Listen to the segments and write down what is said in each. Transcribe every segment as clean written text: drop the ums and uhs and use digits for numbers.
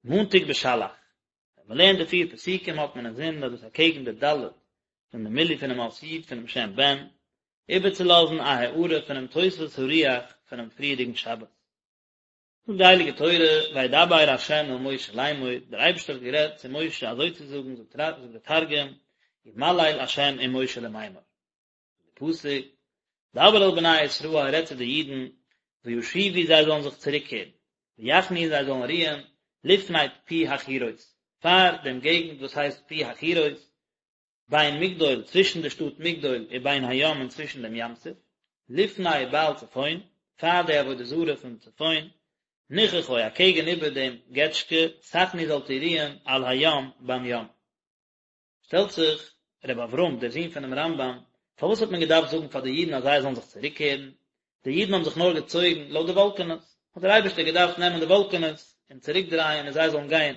מאנטאג בשלח. ווען מען לערנט די פיר פסוקים האט מען אינזין אז דאס אקעגן די ד' פון די מילוי פונעם אות י' פונעם שם בן, איבערצולאזן א הארה פונעם תוספות הרוח פונעם פריערדיגן שבת. זאגט די הייליגע תורה, וידבר ה' אל משה לאמור, דער אייבערשטער האט גערעדט צו משה אזוי צו זאגן, זאגט דער תרגום, ומליל ה' עם משה למימר. די פסוק, דבר אל בני ישראל, רעד צו די אידן, וישובו זיי זאלן זיך צוריקקערן, ויחנו זיי זאלן רוען, לפני פי החירות, פאר דעם געגנט וואס הייסט פי החירות, בין מגדול, צווישן די שטאט מגדול, ובין הים און צווישן דעם ים סוף, לפני בעל צפון, פאר די עבודה זרה פון צפון, נכחו, אקעגן איבער דעם געטשקע, תחנו זאלט איר רוען, על הים, ביים ים. שטעלט זיך רבי אברהם, דער זון פונעם רמב"ם, פארוואס האט מען געדארפט זאגן פאר די אידן אז זיי זאלן זיך צוריקקערן? די אידן האבן זיך נאר געצויגן לויט די וואלקענעס, האט דער אייבערשטער געדארפט נעמען די וואלקענעס און צוריקדרייען און זיי זאלן גיין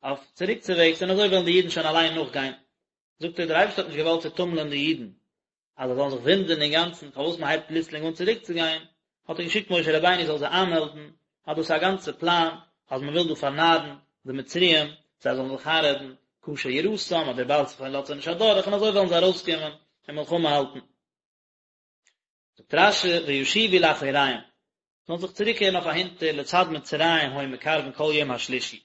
אויף צוריקצוועגס און אזוי וועלן די אידן שוין אליין נאכגיין. זאגט ער, דער אייבערשטער האט נישט געוואלט צוטומלען די אידן, אז זיי זאלן זיך וואונדערן אינגאנצן פארוואס מען הייבט פלוצלינג אן צוריקצוגיין, האט ער געשיקט משה רבינו זאל זיי איינמעלדן אז דאס איז א גאנצע פלאן אז מען וויל דא פארנארן די מצריים, זיי זאלן זיך איינרעדן קשה יראתם אז דער בעל צפון לאזט זיי נישט אדורך און אזוי וועלן זיי ארויסקומען און מלחמה האלטן. זאגט רש"י וישובו לאחוריהם, זאלן זיך צוריקקערן אויף אהינטער לצד מצרים היו מקרבין כל יום השלישי,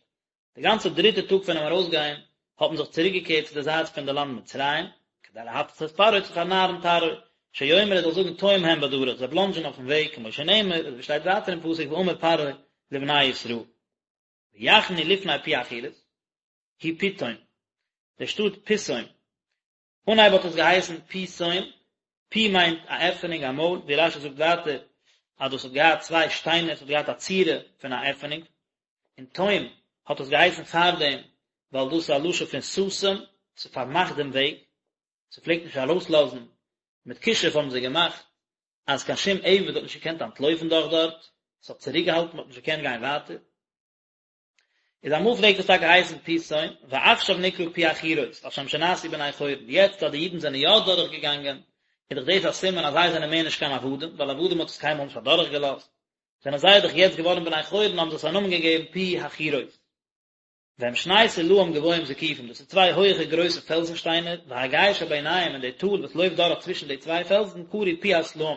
די גאנצע דריטע טאג פונעם ארויסגיין האט מען זיך צוריקגעקערט צו די זייט פון די לאנד מצרים, כדי להטעות את פרעה צו פארנארן פרעה, שיאמר ער זאל זאגן טועים הם בדרך, זיי בלאנדזשען אויפן וועג, כמו שנאמר, אזוי ווי שטייט ווייטער אין פסוק ואמר פרעה לבני ישראל. ויחנו לפני פי החירות, הוא פיתום, די שטאט פיתום, אנהייב האט עס געהייסן פיתום, פי מיינט א עפענונג א מויל, ווי רש"י זאגט ווייטער אז דאס האט געהאט צוויי שטיינער, עס האט געהאט א צורה פון א עפענונג, און תום האט עס געהייסן פארדעם ווייל דאס איז א לשון פון סתום, ס'פארמאכט דעם וועג, ס'פלעגט נישט ארויסלאזן, מיט כישוף האבן זיי געמאכט אז קיין שום עבד האט נישט געקענט אנטלויפן דורך דארט, ס'האט צוריקגעהאלטן, מ'האט נישט געקענט גיין ווייטער. איז אמאל פלעגט עס טאקע הייסן פיתום, ועכשיו נקרא פי החירות, על שם שנעשו בני חורין, יעצט אז די אידן זענען יא דורך געגאנגען, איז דאך דאס א סימן אז זיי זענען מער נישט קיין עבדים, ווייל עבדים האט עס קיינמאל נישט אדורך געלאזט, זענען זיי דאך יעצט געווארן בני חורין האבן זיי עס א נאמען געגעבן פי החירות. והם שני סלעים גבוהים זקופים, דאס איז צוויי הויעכע גרויסע פעלזן שטיינער, והגיא שביניהם און די טאל וואס לויפט דורך צווישן די צוויי פעלזן קרוי פי הסלעים,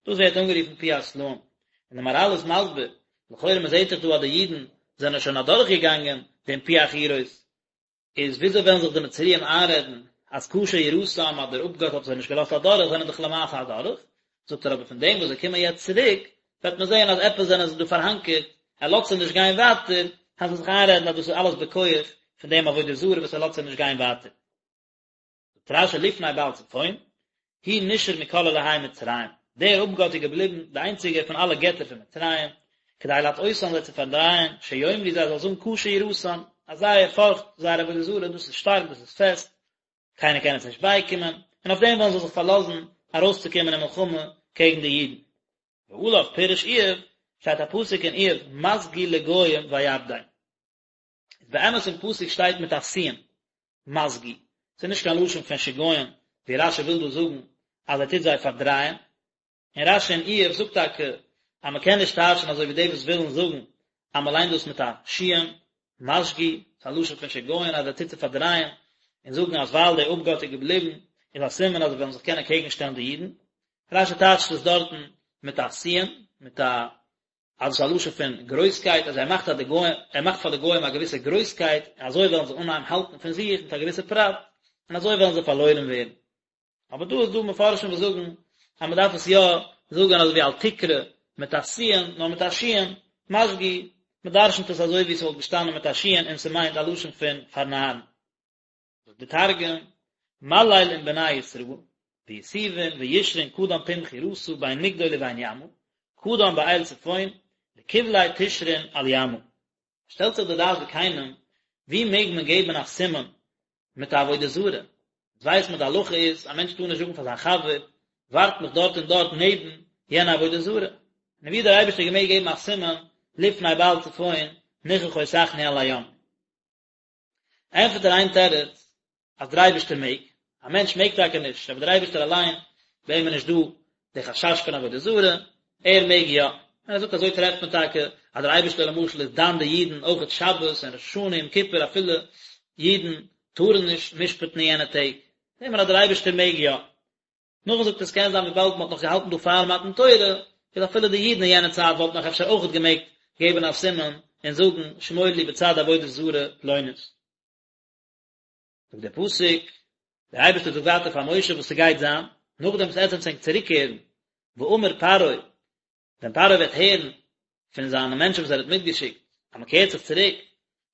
דאס ווערט אנגערופן פי הסלעים, און די מהר"ל איז מסביר, לכאורה מען זעט דאך דא אז די אידן זענען שוין אדורך געגאנגען דעם פי החירות, איז וויאזוי וועלן זיך די מצריים איינרעדן אז קשה יראתם אז דער אפגאט האט זיי נישט געלאזט אדורך, זענען דאך למעשה אדורך, זאגט ער אבער פון דעם וואס זיי קומען יעצט צוריק, וועט מען זען אז עפעס זענען זיי דא פארהאנקערט, ער לאזט זיי נישט גיין ווייטער, וועלן זיי זיך איינרעדן אז דאס איז אלעס בכח פון דעם עבודה זרה וואס ער לאזט זיי נישט גיין ווייטער. זאגט רש"י לפני בעל צפון, הוא נשאר מכל אלהי מצרים, דער אפגאט איז געבליבן די איינציגער פון אלע געטער פון מצרים, כדי להטעותם זיי צו פארדרייען, שיאמרו זיי זאלן זאגן קשה יראתם, אז זייער פארכט, זייער עבודה זרה, דאס איז שטארק, דאס איז פעסט, קיינער קען עס נישט בייקומען, און אויף דעם וועלן זיי זיך פארלאזן ארויסצוקומען אין מלחמה קעגן די אידן. ועליו פירש איוב, שטייט א פסוק אין איוב, משגי לגוים ויאבדם. איז באמת אין פסוק שטייט מיט א סין, משגי, ס'איז נישט קיין לשון פון שגיון, ווי רש"י וויל דא זאגן אז ער טוט זיי פארדרייען, און רש"י אין איוב זאגט טאקע אז מען קען נישט טייטשן אזוי ווי די וואס ווילן זאגן אז מען ליינט דאס מיט א שין, משגי, ס'איז א לשון פון שגיון אז ער טוט זיי פארדרייען, און זאגן אז ווייל דער אפגאט איז געבליבן איז א סימן אז זיי וועלן זיך קענען קעגן שטעלן די אידן, רש"י טייטשט עס דארטן מיט א סין, מיט א אז עס איז א לשון פון גרויסקייט, אז ער מאכט אז די גוים, ער מאכט פאר די גוים א געוויסע גרויסקייט, און אזוי וועלן זיי אנהייבן האלטן פון זיך מיט א געוויסע פרט, און אזוי וועלן זיי פארלוירן ווערן. אבער דא איז דא מפרשים וואס זאגן אז מען דארף עס יא זאגן אזוי ווי אל תקרא מיט א סין, נאר מיט א שין, משגי, מען דרשנ'ט עס אזוי ווי עס וואלט געשטאנען מיט א שין און ס'מיינט א לשון פון פארנארן. זאגט די תרגום, מליל עם בני ישראל, ויתיבון וישרון קדם פום חירתא בין מגדול ובין ימא, קדם באל צפון, לקבליה תשרון על ימא. שטעלט זיך די דעת זקנים, ווי מעג מען געבן א סימן מיט א עבודה זרה? אונז ווייסט מען די הלכה איז, א מענטש טאר נישט זאגן פאר זיין חבר, ווארט מיך דארט און דארט נעבן יענע עבודה זרה. און ווי האט דער אייבערשטער געמעגט געבן א סימן לפני בעל צפון נכחו תחנו על הים? ענטפערט ער איין תירוץ אז דער אייבערשטער מעג, א מענטש מעג טאקע נישט, אבער דער אייבערשטער אליין, ביי אים איז נישט דא די חשש פון עבודה זרה, ער מעג יא, און ער זאגט אזוי טרעפט מען טאקע. אז דער אייבערשטער למשל איז דן די אידן אויכעט שבת און ראש השנה יום כיפור אפילו אידן טארן נישט משפט'ן אין יענע טעג, זעהט מען אז דער אייבערשטער מעג יא. נאכדעם זאגט ער עס קען זיין וויבאלד מען האט נאך געהאלטן דא פאר מתן תורה, איז אפילו די אידן אין יענע צייט וואלטן נאך אפשר אויכעט געמעגט געבן א סימן און זאגן שמור לי בצד עבודה זרה פלונית. זאגט דער פסוק, דער אייבערשטער זאגט ווייטער פאר משה וואס ס'גייט זיין, נאכדעם וואס עטס וועט ענק צוריקקערן, ואמר פרעה, ווען פרעה וועט הערן פון זיינע מענטשן וואס ער האט מיטגעשיקט, אז מען קערט זיך צוריק,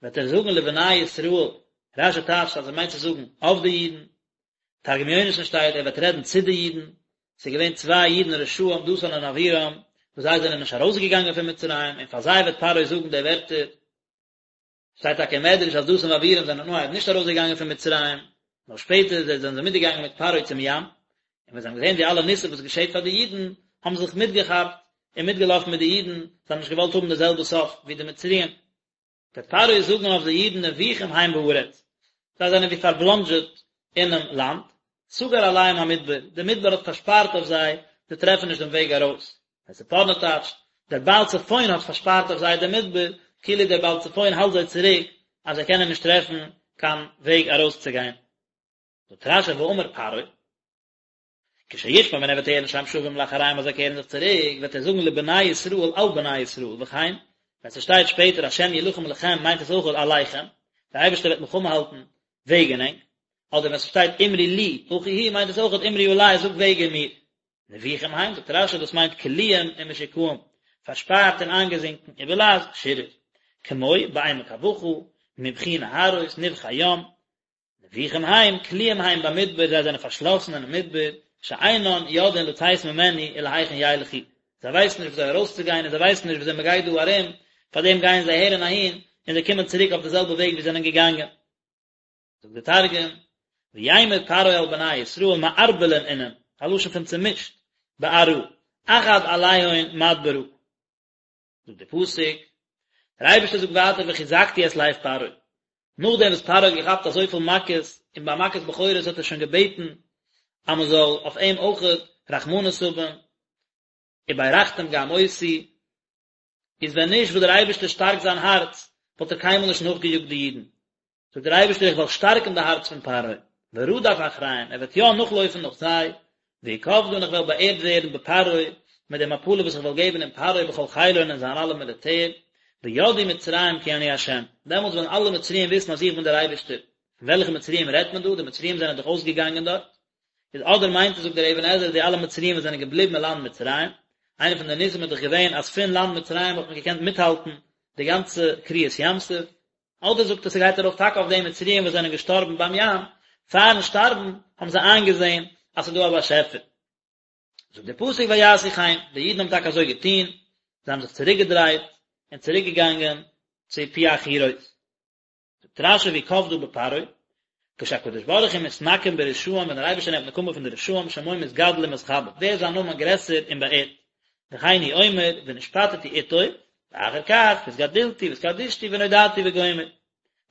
וועט ער זאגן לבני ישראל, רש"י טייטשט אז ער מיינט צו זאגן אויף די אידן, תרגום יונתן שטייט ער וועט רעדן צו די אידן, ס'איז געווען צוויי אידן רשעים דתן און אבירם, וואס זיי זענען נישט ארויסגעגאנגען פון מצרים, און פאר זיי וועט פרעה זאגן די ווערטער, שטייט טאקע אין מדרש אז דתן ואבירם זענען אנהייב נישט ארויסגעגאנגען פון מצרים, נאר שפעטער זענען זיי מיטגעגאנגען מיט פרעה צום ים, און ווען זיי האבן געזען די אלע ניסים וואס געשעט פאר די אידן, האבן זיי זיך מיטגעכאפט און מיטגעלאפן מיט די אידן, זיי האבן נישט געוואלט האבן די זעלבע סוף ווי די מצריים. וועט פרעה זאגן אויף די אידן נבוכים הם בארץ, זיי זענען ווי פארבלאנדזשעט אינעם לאנד, סגר עליהם המדבר, דער מדבר האט פארשפארט אויף זיי, זיי טרעפן נישט דעם וועג ארויס. דער ספורנו טייטשט, דער בעל צפון האט פארשפארט אויף זיי דעם מדבר, כאילו דער בעל צפון האלט זיי צוריק אז זיי קענען נישט טרעפן קיין וועג ארויסצוגיין. זאגט רש"י ואמר פרעה, כשישמע ווען ער וועט הערן שהם שבים לאחריהם אז זיי קערן זיך צוריק, וועט ער זאגן לבני ישראל על בני ישראל, וכן, ווען ס'שטייט שפעטער השם ילחם לכם מיינט עס אויך עליכם, דער אייבערשטער וועט מלחמה האלטן וועגן ענק, אדער ווען ס'שטייט אמרו לי אחי הוא מיינט עס אויך אמרו עלי זאגט וועגן מיר. נבוכים הם, זאגט רש"י דאס מיינט כלואים ומשוקעים, פארשפארט און איינגעזינקען, ובלע"ז שירר, כמו בעמק הבכא, מבכי נהרות, נבכי ים, נבוכים הם, כלואים הם במדבר, זיי זענען פארשלאסן אינעם מדבר, שאינן יודעין לצאת ממנו ולהיכן ילכו, זיי ווייסן נישט וויאזוי ארויסצוגיין און זיי ווייסן נישט וויאזוי מען גייט דא ארום, פארדעם גייען זיי אהער און אהין, און זיי קומען צוריק אויף די זעלבע וועג ווי זיי זענען געגאנגען. זאגט דער תרגום, ויימר פרעה על בני ישראל מערבלין אינון, א לשון פון צומישט, בארעא, עכד עליהון מדברא. זאגט דער פסוק, דער אייבערשטער זאגט ווייטער וחזקתי את לב פרעה, נאכדעם וואס פרעה האט געכאפט אזויפיל מכות, און ביי מכת בכורות האט ער שוין געבעטן אז מען זאל אויף אים אויכעט רחמנות האבן, וברכתם גם אותי, איז ווען נישט וואס דער אייבערשטער שטארקט זיין הארץ, וואלט ער קיינמאל נישט נאכגעיאגט די אידן. זאגט דער אייבערשטער איך וועל שטארקן די הארץ פון פרעה, ורדף אחריהם, ער וועט יא נאכלויפן נאך זיי, ואכבדה און איך וועל באערט ווערן בפרעה, מיט די מפלה וואס איך וועל געבן אין פרעה ובכל חילו און אין זיין אלע מיליטער, וידעו מצרים כי אני ה', דעמאלטס וועלן אלע מצריים וויסן אז איך בין דער אייבערשטער. פון וועלכע מצריים רעדט מען דא? די מצריים זענען דאך אויסגעגאנגען דארט. איז אדער מיינט עס זאגט דער אבן עזרא די אלע מצריים וואס זענען געבליבן אין לאנד מצרים, איינע פון די ניסים איז דאך געווען אז פון לאנד מצרים האט מען געקענט מיטהאלטן די גאנצע קריעת ים סוף, אדער זאגט ער ס'גייט ארויף טאקע אויף די מצריים וואס זענען געשטארבן ביים ים, פארן שטארבן האבן זיי איינגעזען אז ס'איז דא א באשעפער. זאגט דער פסוק ויעשו כן, די אידן האבן טאקע אזוי געטון, זיי האבן זיך צוריקגעדרייט און צוריקגעגאנגען צו פי החירות. זאגט רש"י ואכבדה בפרעה, כשהקדוש ברוך הוא מתנקם ברשעים ווען דער אייבערשטער נעמט נקמה פון די רשעים שמו מתגדל ומתכבד ווערט זיין נאמען גרעסער און באערט, וכן הוא אומר ונשפטתי איתו, ואחר כך והתגדלתי והתקדשתי ונודעתי וגומר.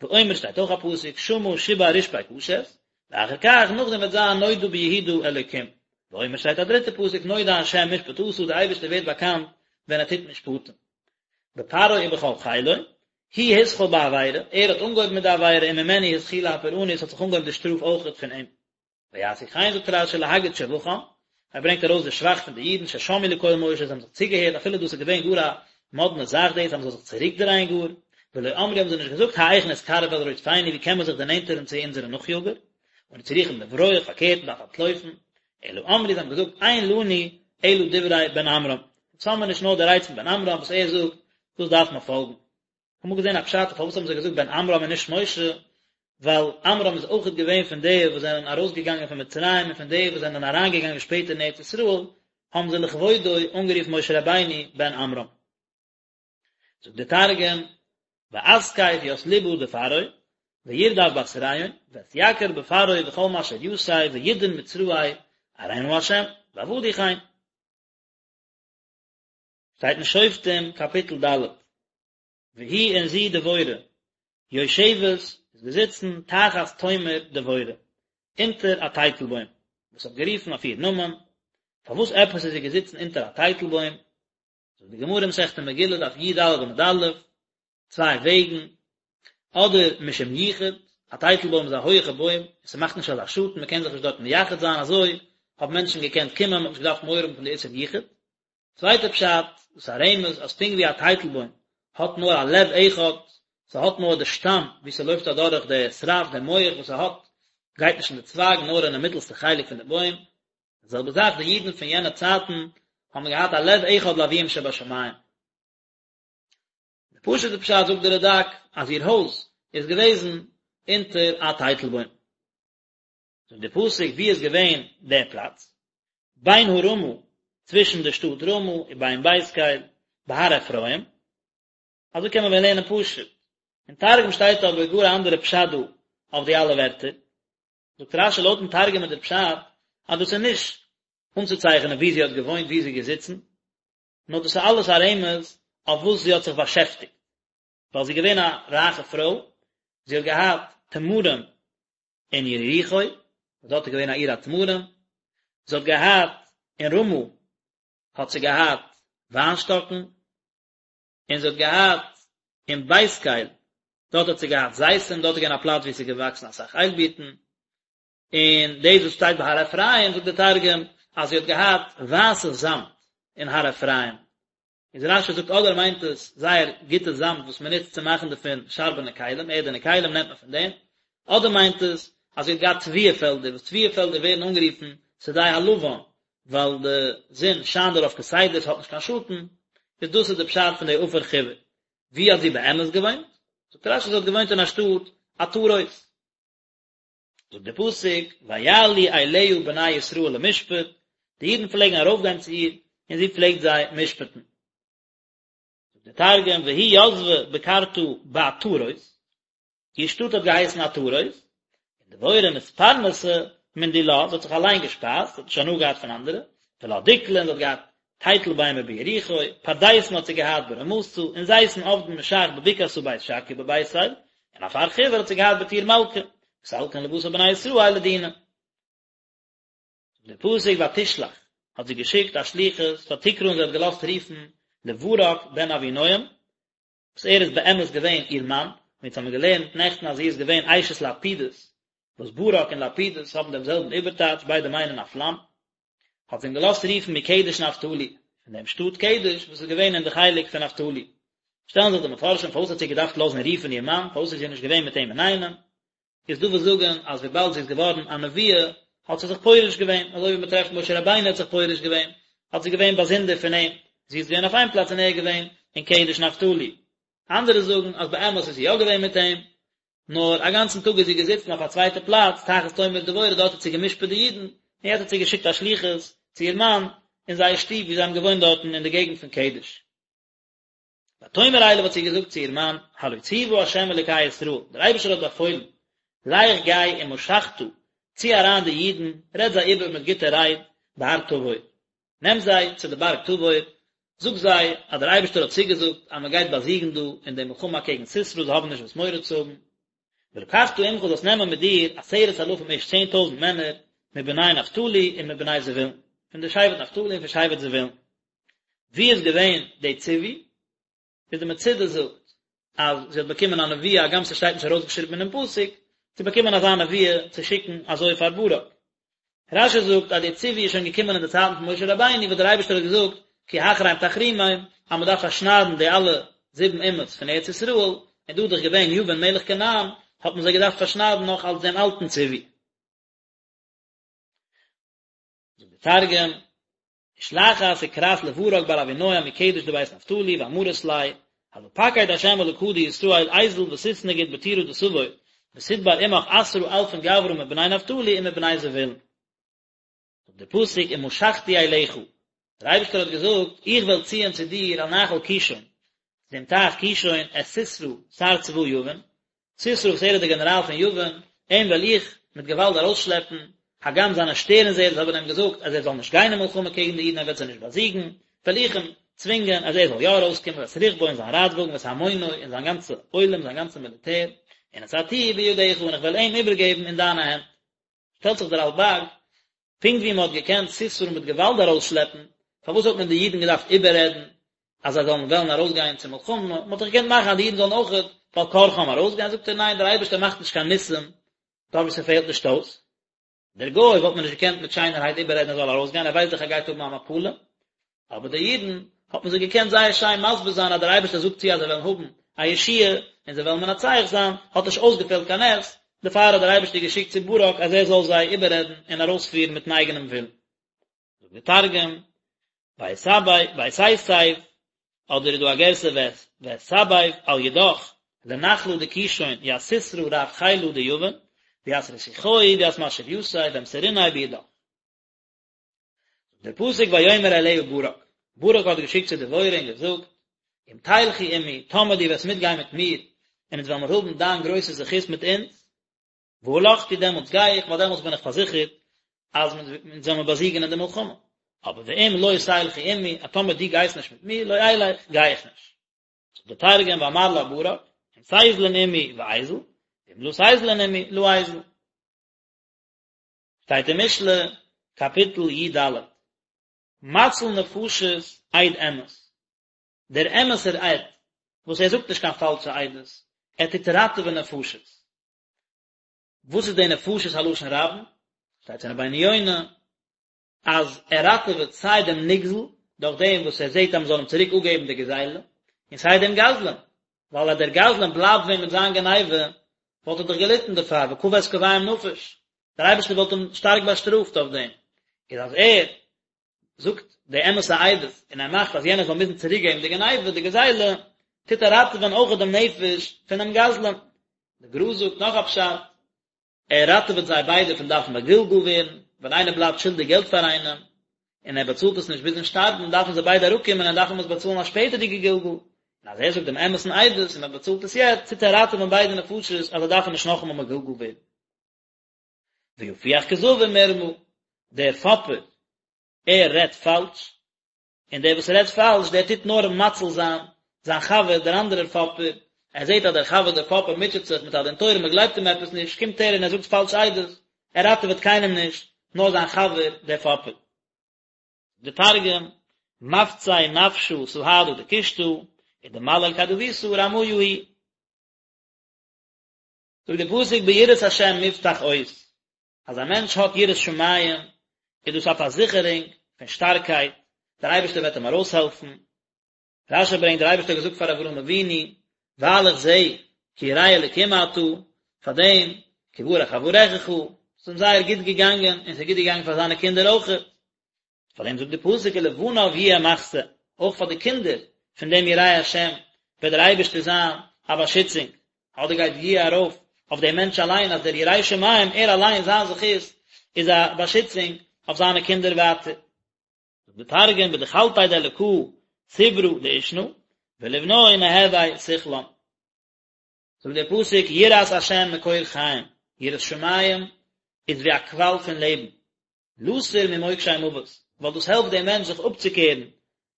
ואומר שטייט אויך א פסוק שמה שיבר רשפי קשת, ואחר כך נאכדעם וועט זיין נודע ביהודה אלוקים. ואומר שטייט א דריטע פסוק נודע השם משפט עשה דער אייבערשטער ווערט באקאנט ווען ער טוט משפטים. בפרעה ובכל חילו, הוא התחיל בעבירה, ער האט אנגעהויבן מיט די עבירה וממנו התחילה הפורענות האט זיך אנגעהויבן די שטראף אויכעט פון אים. ויעשו כן זאגט רש"י להגיד שבחם, ער ברענגט ארויס די שבח פון די אידן ששמעו לקול משה זיי האבן זיך צוגעהערט אפילו דאס איז געווען גאר א מאדנע זאך דאס אז מען זאל זיך צוריקדרייען גאר, ולא אמרו האבן זיי נישט געזאגט האיך נתקרב אל רודפינו ווי קען מען זיך דערנענטערן צו אונזערע נאכיאגער, אנו צריכים לברוח פארקערט מען דארף אנטלויפן, אלא אמרו זיי האבן געזאגט אין לנו אלא דברי בן עמרם, אונז האמיר נישט נאר די רייד פון בן עמרם וואס ער זאגט, דאס דארף מען פאלגן. כ'האב אמאל געזען א פשט פארוואס האבן זיי געזאגט בן עמרם און נישט משה, ווייל עמרם איז אויכעט געווען פון די וואס זענען ארויסגעגאנגען פון מצרים און פון די וואס זענען אריינגעגאנגען שפעטער אין ארץ ישראל, האבן זיי לכבודו אנגערופן משה רבינו בן עמרם. זאגט דער תרגום, ואתקיף ית לבא דפרעה, וירדף בתריהון, ואתיקר בפרעה וכל משריתיה וידעון מצראי ארין ה', ועבדו כן. שטייט אין שופטים קאפיטל ד', והיא און זי דבורה, יושבת איז געזיצן תחת תומר דבורה, אונטער א טייטלבוים, וואס האט גערופן אויף איר נאמען, פארוואס עפעס איז זי געזיצן אונטער א טייטלבוים? זאגט די גמרא מסכת מגילה דף י"ד עמוד א', צוויי וועגן, אדער משום יחוד, א טייטלבוים איז א הויעכע בוים, און ס'מאכט נישט אזא שאטן, מ'קען זיך נישט דארט מייחד זיין, אזוי האבן מענטשן געקענט קומען, מ'האט נישט געדארפט מורא האבן פון די איסור יחוד. צווייטע פשט, דאס איז א רמז אז פונקט ווי א טייטלבוים האט נאר א לב אחד, ס'האט נאר די שטאם וואו ס'לויפט אדורך די שרף, די מח וואס ס'האט, גייט נישט אין די צווייג נאר אינעם מיטלסטע חלק פון די בוים, די זעלבע זאך די אידן פון יענע צייטן האבן געהאט א לב אחד לאביהם שבשמים. די פשוט'ע פשט זאגט די רד"ק אז איר הויז איז געוועזן אונטער א טייטלבוים. זאגט די פסוק וואו איז געווען דער פלאץ? בין הרמה, צווישן די שטאט רמה ובין בית קל, בהר אפרים, אזוי קען מען ווען לערנען פשוט. אין תרגום שטייט אבער גאר א אנדערע פשט דא אויף די אלע ווערטער. זאגט רש"י לויטן תרגום איז דער פשט אז דאס איז נישט אנצוצייכענען וואו זי האט געוואוינט וואו זי איז געזיצן, נאר דאס איז אלעס א רמז אויף וואס זי האט זיך באשעפטיגט, ווייל זי איז געווען א רייכע פרוי, זי האט געהאט תמרים אין יריחו, וואס דארט איז געווען א עיר התמרים, זי האט געהאט אין רמה האט זי געהאט וויינשטאקן, און זי האט געהאט אין בית קל, דארט האט זי געהאט זיתים, דארט איז געווען א פלאץ וואו עס איז געוואקסן אסאך איילבירטן, און דאס וואס שטייט בהר אפרים זאגט דער תרגום אז זי האט געהאט ווייסע זאמד אין הר אפרים, איז רש"י זאגט אדער מיינט עס זייער גוטע זאמד וואס מען נוצט צו מאכן דערפון שארבענע כלים, ערדענע כלים נעמט מען פון דעם, אדער מיינט עס אז זי האט געהאט תבואה פעלדער, וואס תבואה פעלדער ווערן אנגערופן שדה הלבן, ווייל די זון שיינט דערויף כסדר, ס'האט נישט קיין שאטן, איז דאס איז די פשט פון די עפר חיור. וואו האט זי באמת געוואוינט? זאגט רש"י זי האט געוואוינט אין א שטאט עטרות. זאגט דער פסוק, ויעלו אליה בני ישראל למשפט, די אידן פלעגן ארויפגיין צו איר, און זי פלעגט זיי משפט'ן. זאגט דער תרגום, והיא יתבה בקרתא בעטרות, איר שטאט האט געהייסן עטרות, און דבורה מתפרנסה מן דילה, זי האט זיך אליין געשפייזט, זי האט נישט הנאה געהאט פון אנדערע, ולה דקלין, זי האט געהאט טייטל ביימער ביריחו, פרדסין האט זי געהאט ברמתה, און זיתין עבדין משח בבקעתא בית שקיא בבית אל, און עפר חיור האט זי געהאט בטור מלכא, וסלקין לותה בני ישראל לדינא. זאגט דער פסוק ותשלח, האט זי געשיקט א שליחות, ותקרא און זי האט געלאזט רופן לברק בן אבינועם, וואס ער איז באמת געווען איר מאן, ווי אונז האבן געלערנט נעכטן אז זי איז געווען אשת לפידות, וואס ברק און לפידות האבן דעם זעלבן איבערטייטש, ביידע מיינען א פלאם, האט זי אים געלאזט רופן מקדש נפתלי, פון דעם שטאט קדש וואס איז געווען אין די חלק פון נפתלי. שטעלן זיך די מפרשים פארוואס האט זי געדארפט לאזן רופן איר מאן, פארוואס איז זי נישט געווען מיט אים אינאיינעם, איז דא וואס זאגן אז וויבאלד זי איז געווארן א נביאה האט זי זיך פורש געווען, אזוי ווי מען טרעפט משה רבינו האט זיך פורש געווען, האט זי געווען באזונדער פון אים, זי איז געווען אויף איין פלאץ און ער איז געווען אין קדש נפתלי. אנדערע זאגן אז באמת איז זי יא געווען מיט אים, נאר א גאנצן טאג איז זי געזיצן אויף א צווייטע פלאץ, תחת תומר דבורה, דארט האט זי גע'משפט די אידן, און יעצט האט זי געשיקט א שליחות צו איר מאן אין זייער שטוב וואו זיי האבן געוואוינט דארטן אין די געגנט פון קדש. ותאמר אליו האט זי געזאגט צו איר מאן, הלא צוה ה' אלוקי ישראל, דער אייבערשטער האט באפוילן, לך גיי ומשכת, צי אריין די אידן, רעד זיי איבער מיט גוטע רייד, בהר תבור, נעם זיי צו די בארג תבור, זאג זיי אז דער אייבערשטער האט צוגעזאגט אז מען גייט באזיגן דא אין די מלחמה אקעגן סיסרא, זיי האבן נישט וואס מורא צו האבן. ולקחת עמך זאלסט נעמען מיט דיר עשרת אלפים איש 10,000 מענער, מבני נפתלי און מבני זבולון, פון די שבט נפתלי און פון שבט זבולון. ווי איז געווען די ציווי? איז די מצודה זאגט אז זי האט באקומען א נבואה הגם ס'שטייט נישט ארויסגעשריבן אינעם פסוק, צו באקומען אזא נבואה צו שיקן אזוי פאר ברק. רש"י זאגט אז די ציווי איז שוין געקומען אין די צייטן פון משה רבינו וואס דער אייבערשטער האט געזאגט כי החרם תחרימם אז מען דארף פארשניידן די אלע זיבן אומות פון ארץ ישראל, און דא איז דאך געווען יבין מלך כנען האט מען זיי געדארפט פארשניידן נאך אלס דעם אלטן ציווי. זאגט דער תרגום, ושלחת וקראת לברק בר אבינועם מקדש דבית נפתלי ואמרת ליה, הלא פקיד ה' אלקא דישראל איזיל ותתנגיד בטורא דתבור ותדבר עמך עשרה אלפין גברא מבני נפתלי ומבני זבולון. זאגט דער פסוק ומשכתי אליך, דער אייבערשטער האט געזאגט, איך וועל ציען צו דיר אל נחל קישון, צו דעם טייך קישון, את סיסרא, שר צבא יבין, סיסרא וואס ער איז דער גענעראל פון יבין, אים וועל איך מיט געוואלד ארויסשלעפן, הגם זיינע שטערנזעערס האבן אים געזאגט אז ער זאל נישט גיין אין מלחמה קעגן די אידן ער וועט זיי נישט באזיגן, וועל איך אים צווינגען אז ער זאל יא ארויסקומען, ואת רכבו און זיין רייטוואגן ואת המונו און זיין גאנצע עולם זיין גאנצע מיליטער, ונתתיהו בידך און איך וועל אים איבערגעבן אין דיינע הענט. שטעלט זיך דער רלב"ג, פונקט ווי מען האט געקענט סיסרא מיט געוואלד ארויסשלעפן, פארוואס האט מען די אידן געדארפט איבעררעדן? אז זיי זאלן וועלן ארויסגיין צו מלחמה, מען האט דאך געקענט מאכן אז די אידן זאלן אויכעט בעל כרחם ארויסגיין, זאגט ער ניין דער אייבערשטער מאכט נישט קיין ניסים דארט וואו ס'פעלט נישט אויס. דער גוי וואלט מען נישט געקענט מיט שיינערהייט איבעררעדן ער זאל ארויסגיין, ער ווייסט דאך ער גייט האבן א מפלה, אבער די אידן האט מען זיי געקענט זייער שיין מסביר זיין אז דער אייבערשטער זאגט צו אז זיי וועלן האבן א ישועה און זיי וועלן מנצח זיין, האט נישט אויסגעפעלט קיין נס, דערפאר האט דער אייבערשטער געשיקט צו ברק אז ער זאל זיי איבעררעדן און ארויספירן מיטן אייגענעם ווילן. זאגט דער תרגום, ותסב, אדער איז דא א גירסא ואתסביב על ידך לנחלא דקישון ית סיסרא רב חילא דיבין, וית רתיחוהי וית משריתיה ואמסריניה בידך. זאגט דער פסוק ויאמר אליה ברק, ברק האט געשיקט צו דבורה און געזאגט, אם תלכי עמי, טאמער דו וועסט מיטגיין מיט מיר, און אונז וועלן מיר האבן דיין גרויסע זכות מיט אונז, והלכתי דעמאלטס גיי איך, ווייל דעמאלטס בין איך פארזיכערט אז אונז וועלן מיר באזיגן אין די מלחמה. אבער ואם לא תלכי עמי, אז טאמער דו גייסט נישט מיט מיר, לא אלך, גיי איך נישט. זאגט דער תרגום ואמר לה ברק, אם תיזלין עמי ואיזיל, ואם לא תיזלין עמי לא איזיל. שטייט אין משלי, קאפיטל י ד, מציל נפשות עד אמת, דער אמת'ער עד, וואס ער זאגט נישט קיין פאלשע עדות, ער טוט ראטעווען נפשות. וואס איז די נפשות א לשון רבים? שטייט אין רבינו יונה אז ער ראטעוועט סיי דעם נגזל דורך דעם וואס ער זעט אז מען זאל אים צוריק אפגעבן די גזילה, און סיי דעם גזלן, ווייל אז דער גזלן בלייבט ווען מיט זיין גניבה וואלט ער דאך געליטן דערפאר, וקבה את קווים נפש, דער אייבערשטער וואלט אים שטארק באשטראפט אויף דעם, איז אז ער זאגט די אמת'ע עדות און ער מאכט אז יענער זאל מוזן צוריק געבן די גניבה, די גזילה, טוט ער ראטעווען אויך דעם נפש פונעם גזלן. די גר"א זאגט נאך א פשט, ער ראטעוועט זיי ביידע פון דארפן מגולגל ווערן, ווען איינער בלייבט שולדיג געלט פאר איינעם, און ער באצאלט עס נישט ביזן שטארבן, דארפן זיי ביידע אראפקומען און דארפן עס באצאלן א שפעטערדיגע גלגול, און אז ער זאגט דעם אמת'ן עדות און מען באצאלט עס יעצט, טוט ער ראטעווען ביידע נפשות אז זיי דארפן נישט נאכאמאל מגולגל ווערן. ויפוח כזבים מרמה, דער פאפער, ער רעדט פאלש, און דער וואס רעדט פאלש, דער טוט נאר מציל זיין זיין חבר, דער אנדערער פאפער, ער זעט אז דער חבר דער פאפער מוטשעט זיך מיט א דין תורה, מען גלייבט אים עפעס נישט, קומט ער און ער זאגט פאלש עדות, ער ראטעוועט קיינעם נישט, נאר זיין חבר דער פאפער. די תרגום, מפצי נפשא סהדא דקושטא, ודמליל כדבותא רמיא הוא. זאגט דער פסוק ביראת השם מובטח עוז, אז א מענטש האט יראת שמים איז דאס א פארזיכערונג פון שטארקייט, דער אייבערשטער וועט אים ארויסהעלפן. רש"י ברענגט דער אייבערשטער האט געזאגט פאר אברהם אבינו, ווייל איך זע כי ירא אלקים אתה, פאר דעם כי ברך אברכך, ס'איז אים זייער גוט געגאנגען און ס'איז גוט געגאנגען פאר זיינע קינדער אויכעט. פאר דעם זאגט די פסוק ולבניו יהיה מחסה, אויך פאר די קינדער פון דעם יראי השם וועט דער אייבערשטער זיין א באשיצונג, אדער גייט יהיה ארויף אויף דעם מענטש אליין אז דער ירא שמים ער אליין זיין זכות איז א באשיצונג אויף זיינע קינדער ווייטער. זאגט די תרגום בדחלתיה דאלקא סברא דאישנא ולבנוי נהוי סכלן. זאגט דער פסוק יראת השם מקור חיים, יראת שמים איז ווי א קוואל פון לעבן, לתור ממוקשי מוות, ווייל דאס העלפט דעם מענטש זיך אפצוקערן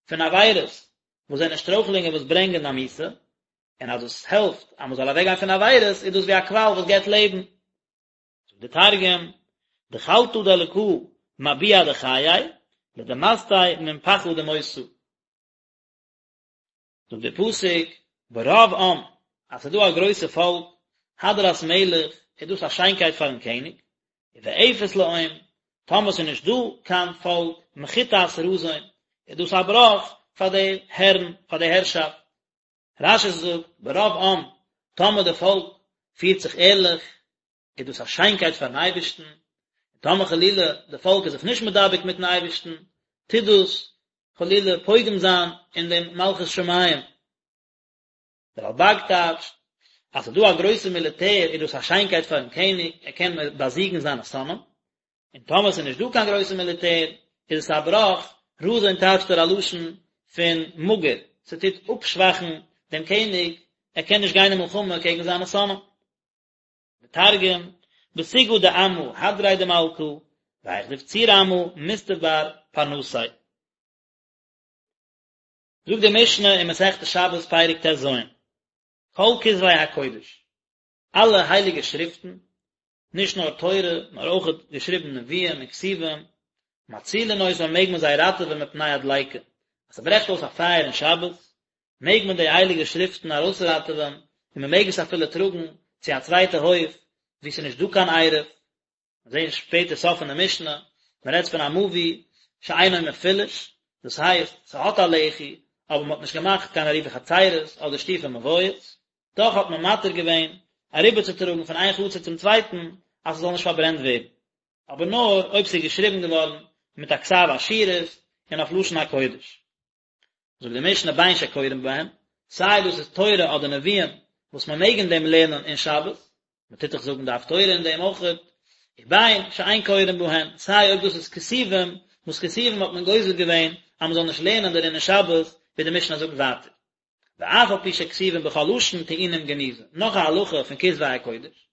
פון עבירות וואס זענען שטרויכלונגען וואס ברענגען א מיתה, און אז דאס העלפט אז מען זאל אוועקגיין פון עבירות איז דאס ווי א קוואל וואס געבט לעבן. זאגט דער תרגום, דחלתא דאלקא מביע דחיי, לדמסתי מן פחא דמותא. זאגט דער פסוק, ברוב עם, אז ס'איז דא א גרויסע פאלק, הדרת מלך, איז דאס א שיינקייט פארן קעניג, ובאפס לאום, טאמער ס'איז נישט דא קיין פאלק, מחיתת רזון, איז דאס א בראך פאר די הערן, פאר די הערשאפט. רש"י זאגט, ברוב עם, טאמער די פאלק פירט זיך ערליך, איז דאס א שיינקייט פארן אייבערשטן, און טאמער חלילה די פאלק איז זיך נישט מדבק מיטן אייבערשטן, טוט דאס חלילה פוגם זיין אין דעם מלכות שמים. דער רלב"ג טייטשט, אז ס'איז דא א גרויסע מיליטער איז דאס א שיינקייט פארן קעניג, ער קען באזיגן זיינע שונאים, און טאמער ס'איז נישט דא קיין גרויסע מיליטער, איז עס א בראך, רזון טייטשט ער א לשון פון מאגער, ס'טוט אפשוואכן דעם קעניג, ער קען נישט גיין אין מלחמה קעגן זיינע שונאים. די תרגום, בסוגעא דעמא הדריה דמלכא, והיכא דבציר עמא מסתבר פרנסיה. זאגט די משנה אין מסכת שבת פרק ט"ז, כל כתבי הקודש, אלע הייליגע שריפטן, נישט נאר תורה, נאר אויך געשריבן נביאים און כתובים, מצילין אותן מעג מען זיי ראטעווען מפני הדליקה, אז ס'ברעכט אויס א פייער אין שבת, מעג מען די הייליגע שריפטן ארויסראטעווען, און מען מעג עס אפילו טראגן צו א צווייטע הויף וואו ס'איז נישט דא קיין עירוב. מיר זעען שפעטער סוף פון די משנה, מען רעדט פון א מבוי שאינו מפולש, דאס הייסט, ס'האט א לחי, אבער מען האט נישט געמאכט קיין עירובי חצירות אדער שיתופי מבואות, דאך האט מען מתיר געווען אריבערצוטראגן פון איין חצר צום צווייטן אז ס'זאל נישט פארברענט ווערן, אבער נאר אויב ס'איז געשריבן געווארן מיט א כתב אשורית און אויף לשון הקודש. זאגט די משנה בין שקורין בהן, סיי דאס איז תורה אדער נביאים וואס מען מעג אין דעם לערנען אין שבת, מען טוט דאך זאגן די הפטורה אין דעם אויכעט, ובין שאין קורין בהן, סיי אויב דאס איז כתובים, וואס כתובים האט מען גוזר געווען אז מען זאל נישט לערנען דערין אין שבת, ווי די משנה זאגט ווייטער. ואף על פי שכתובים בכל לשון טעונים גניזה, נאך א הלכה פון כתבי הקודש,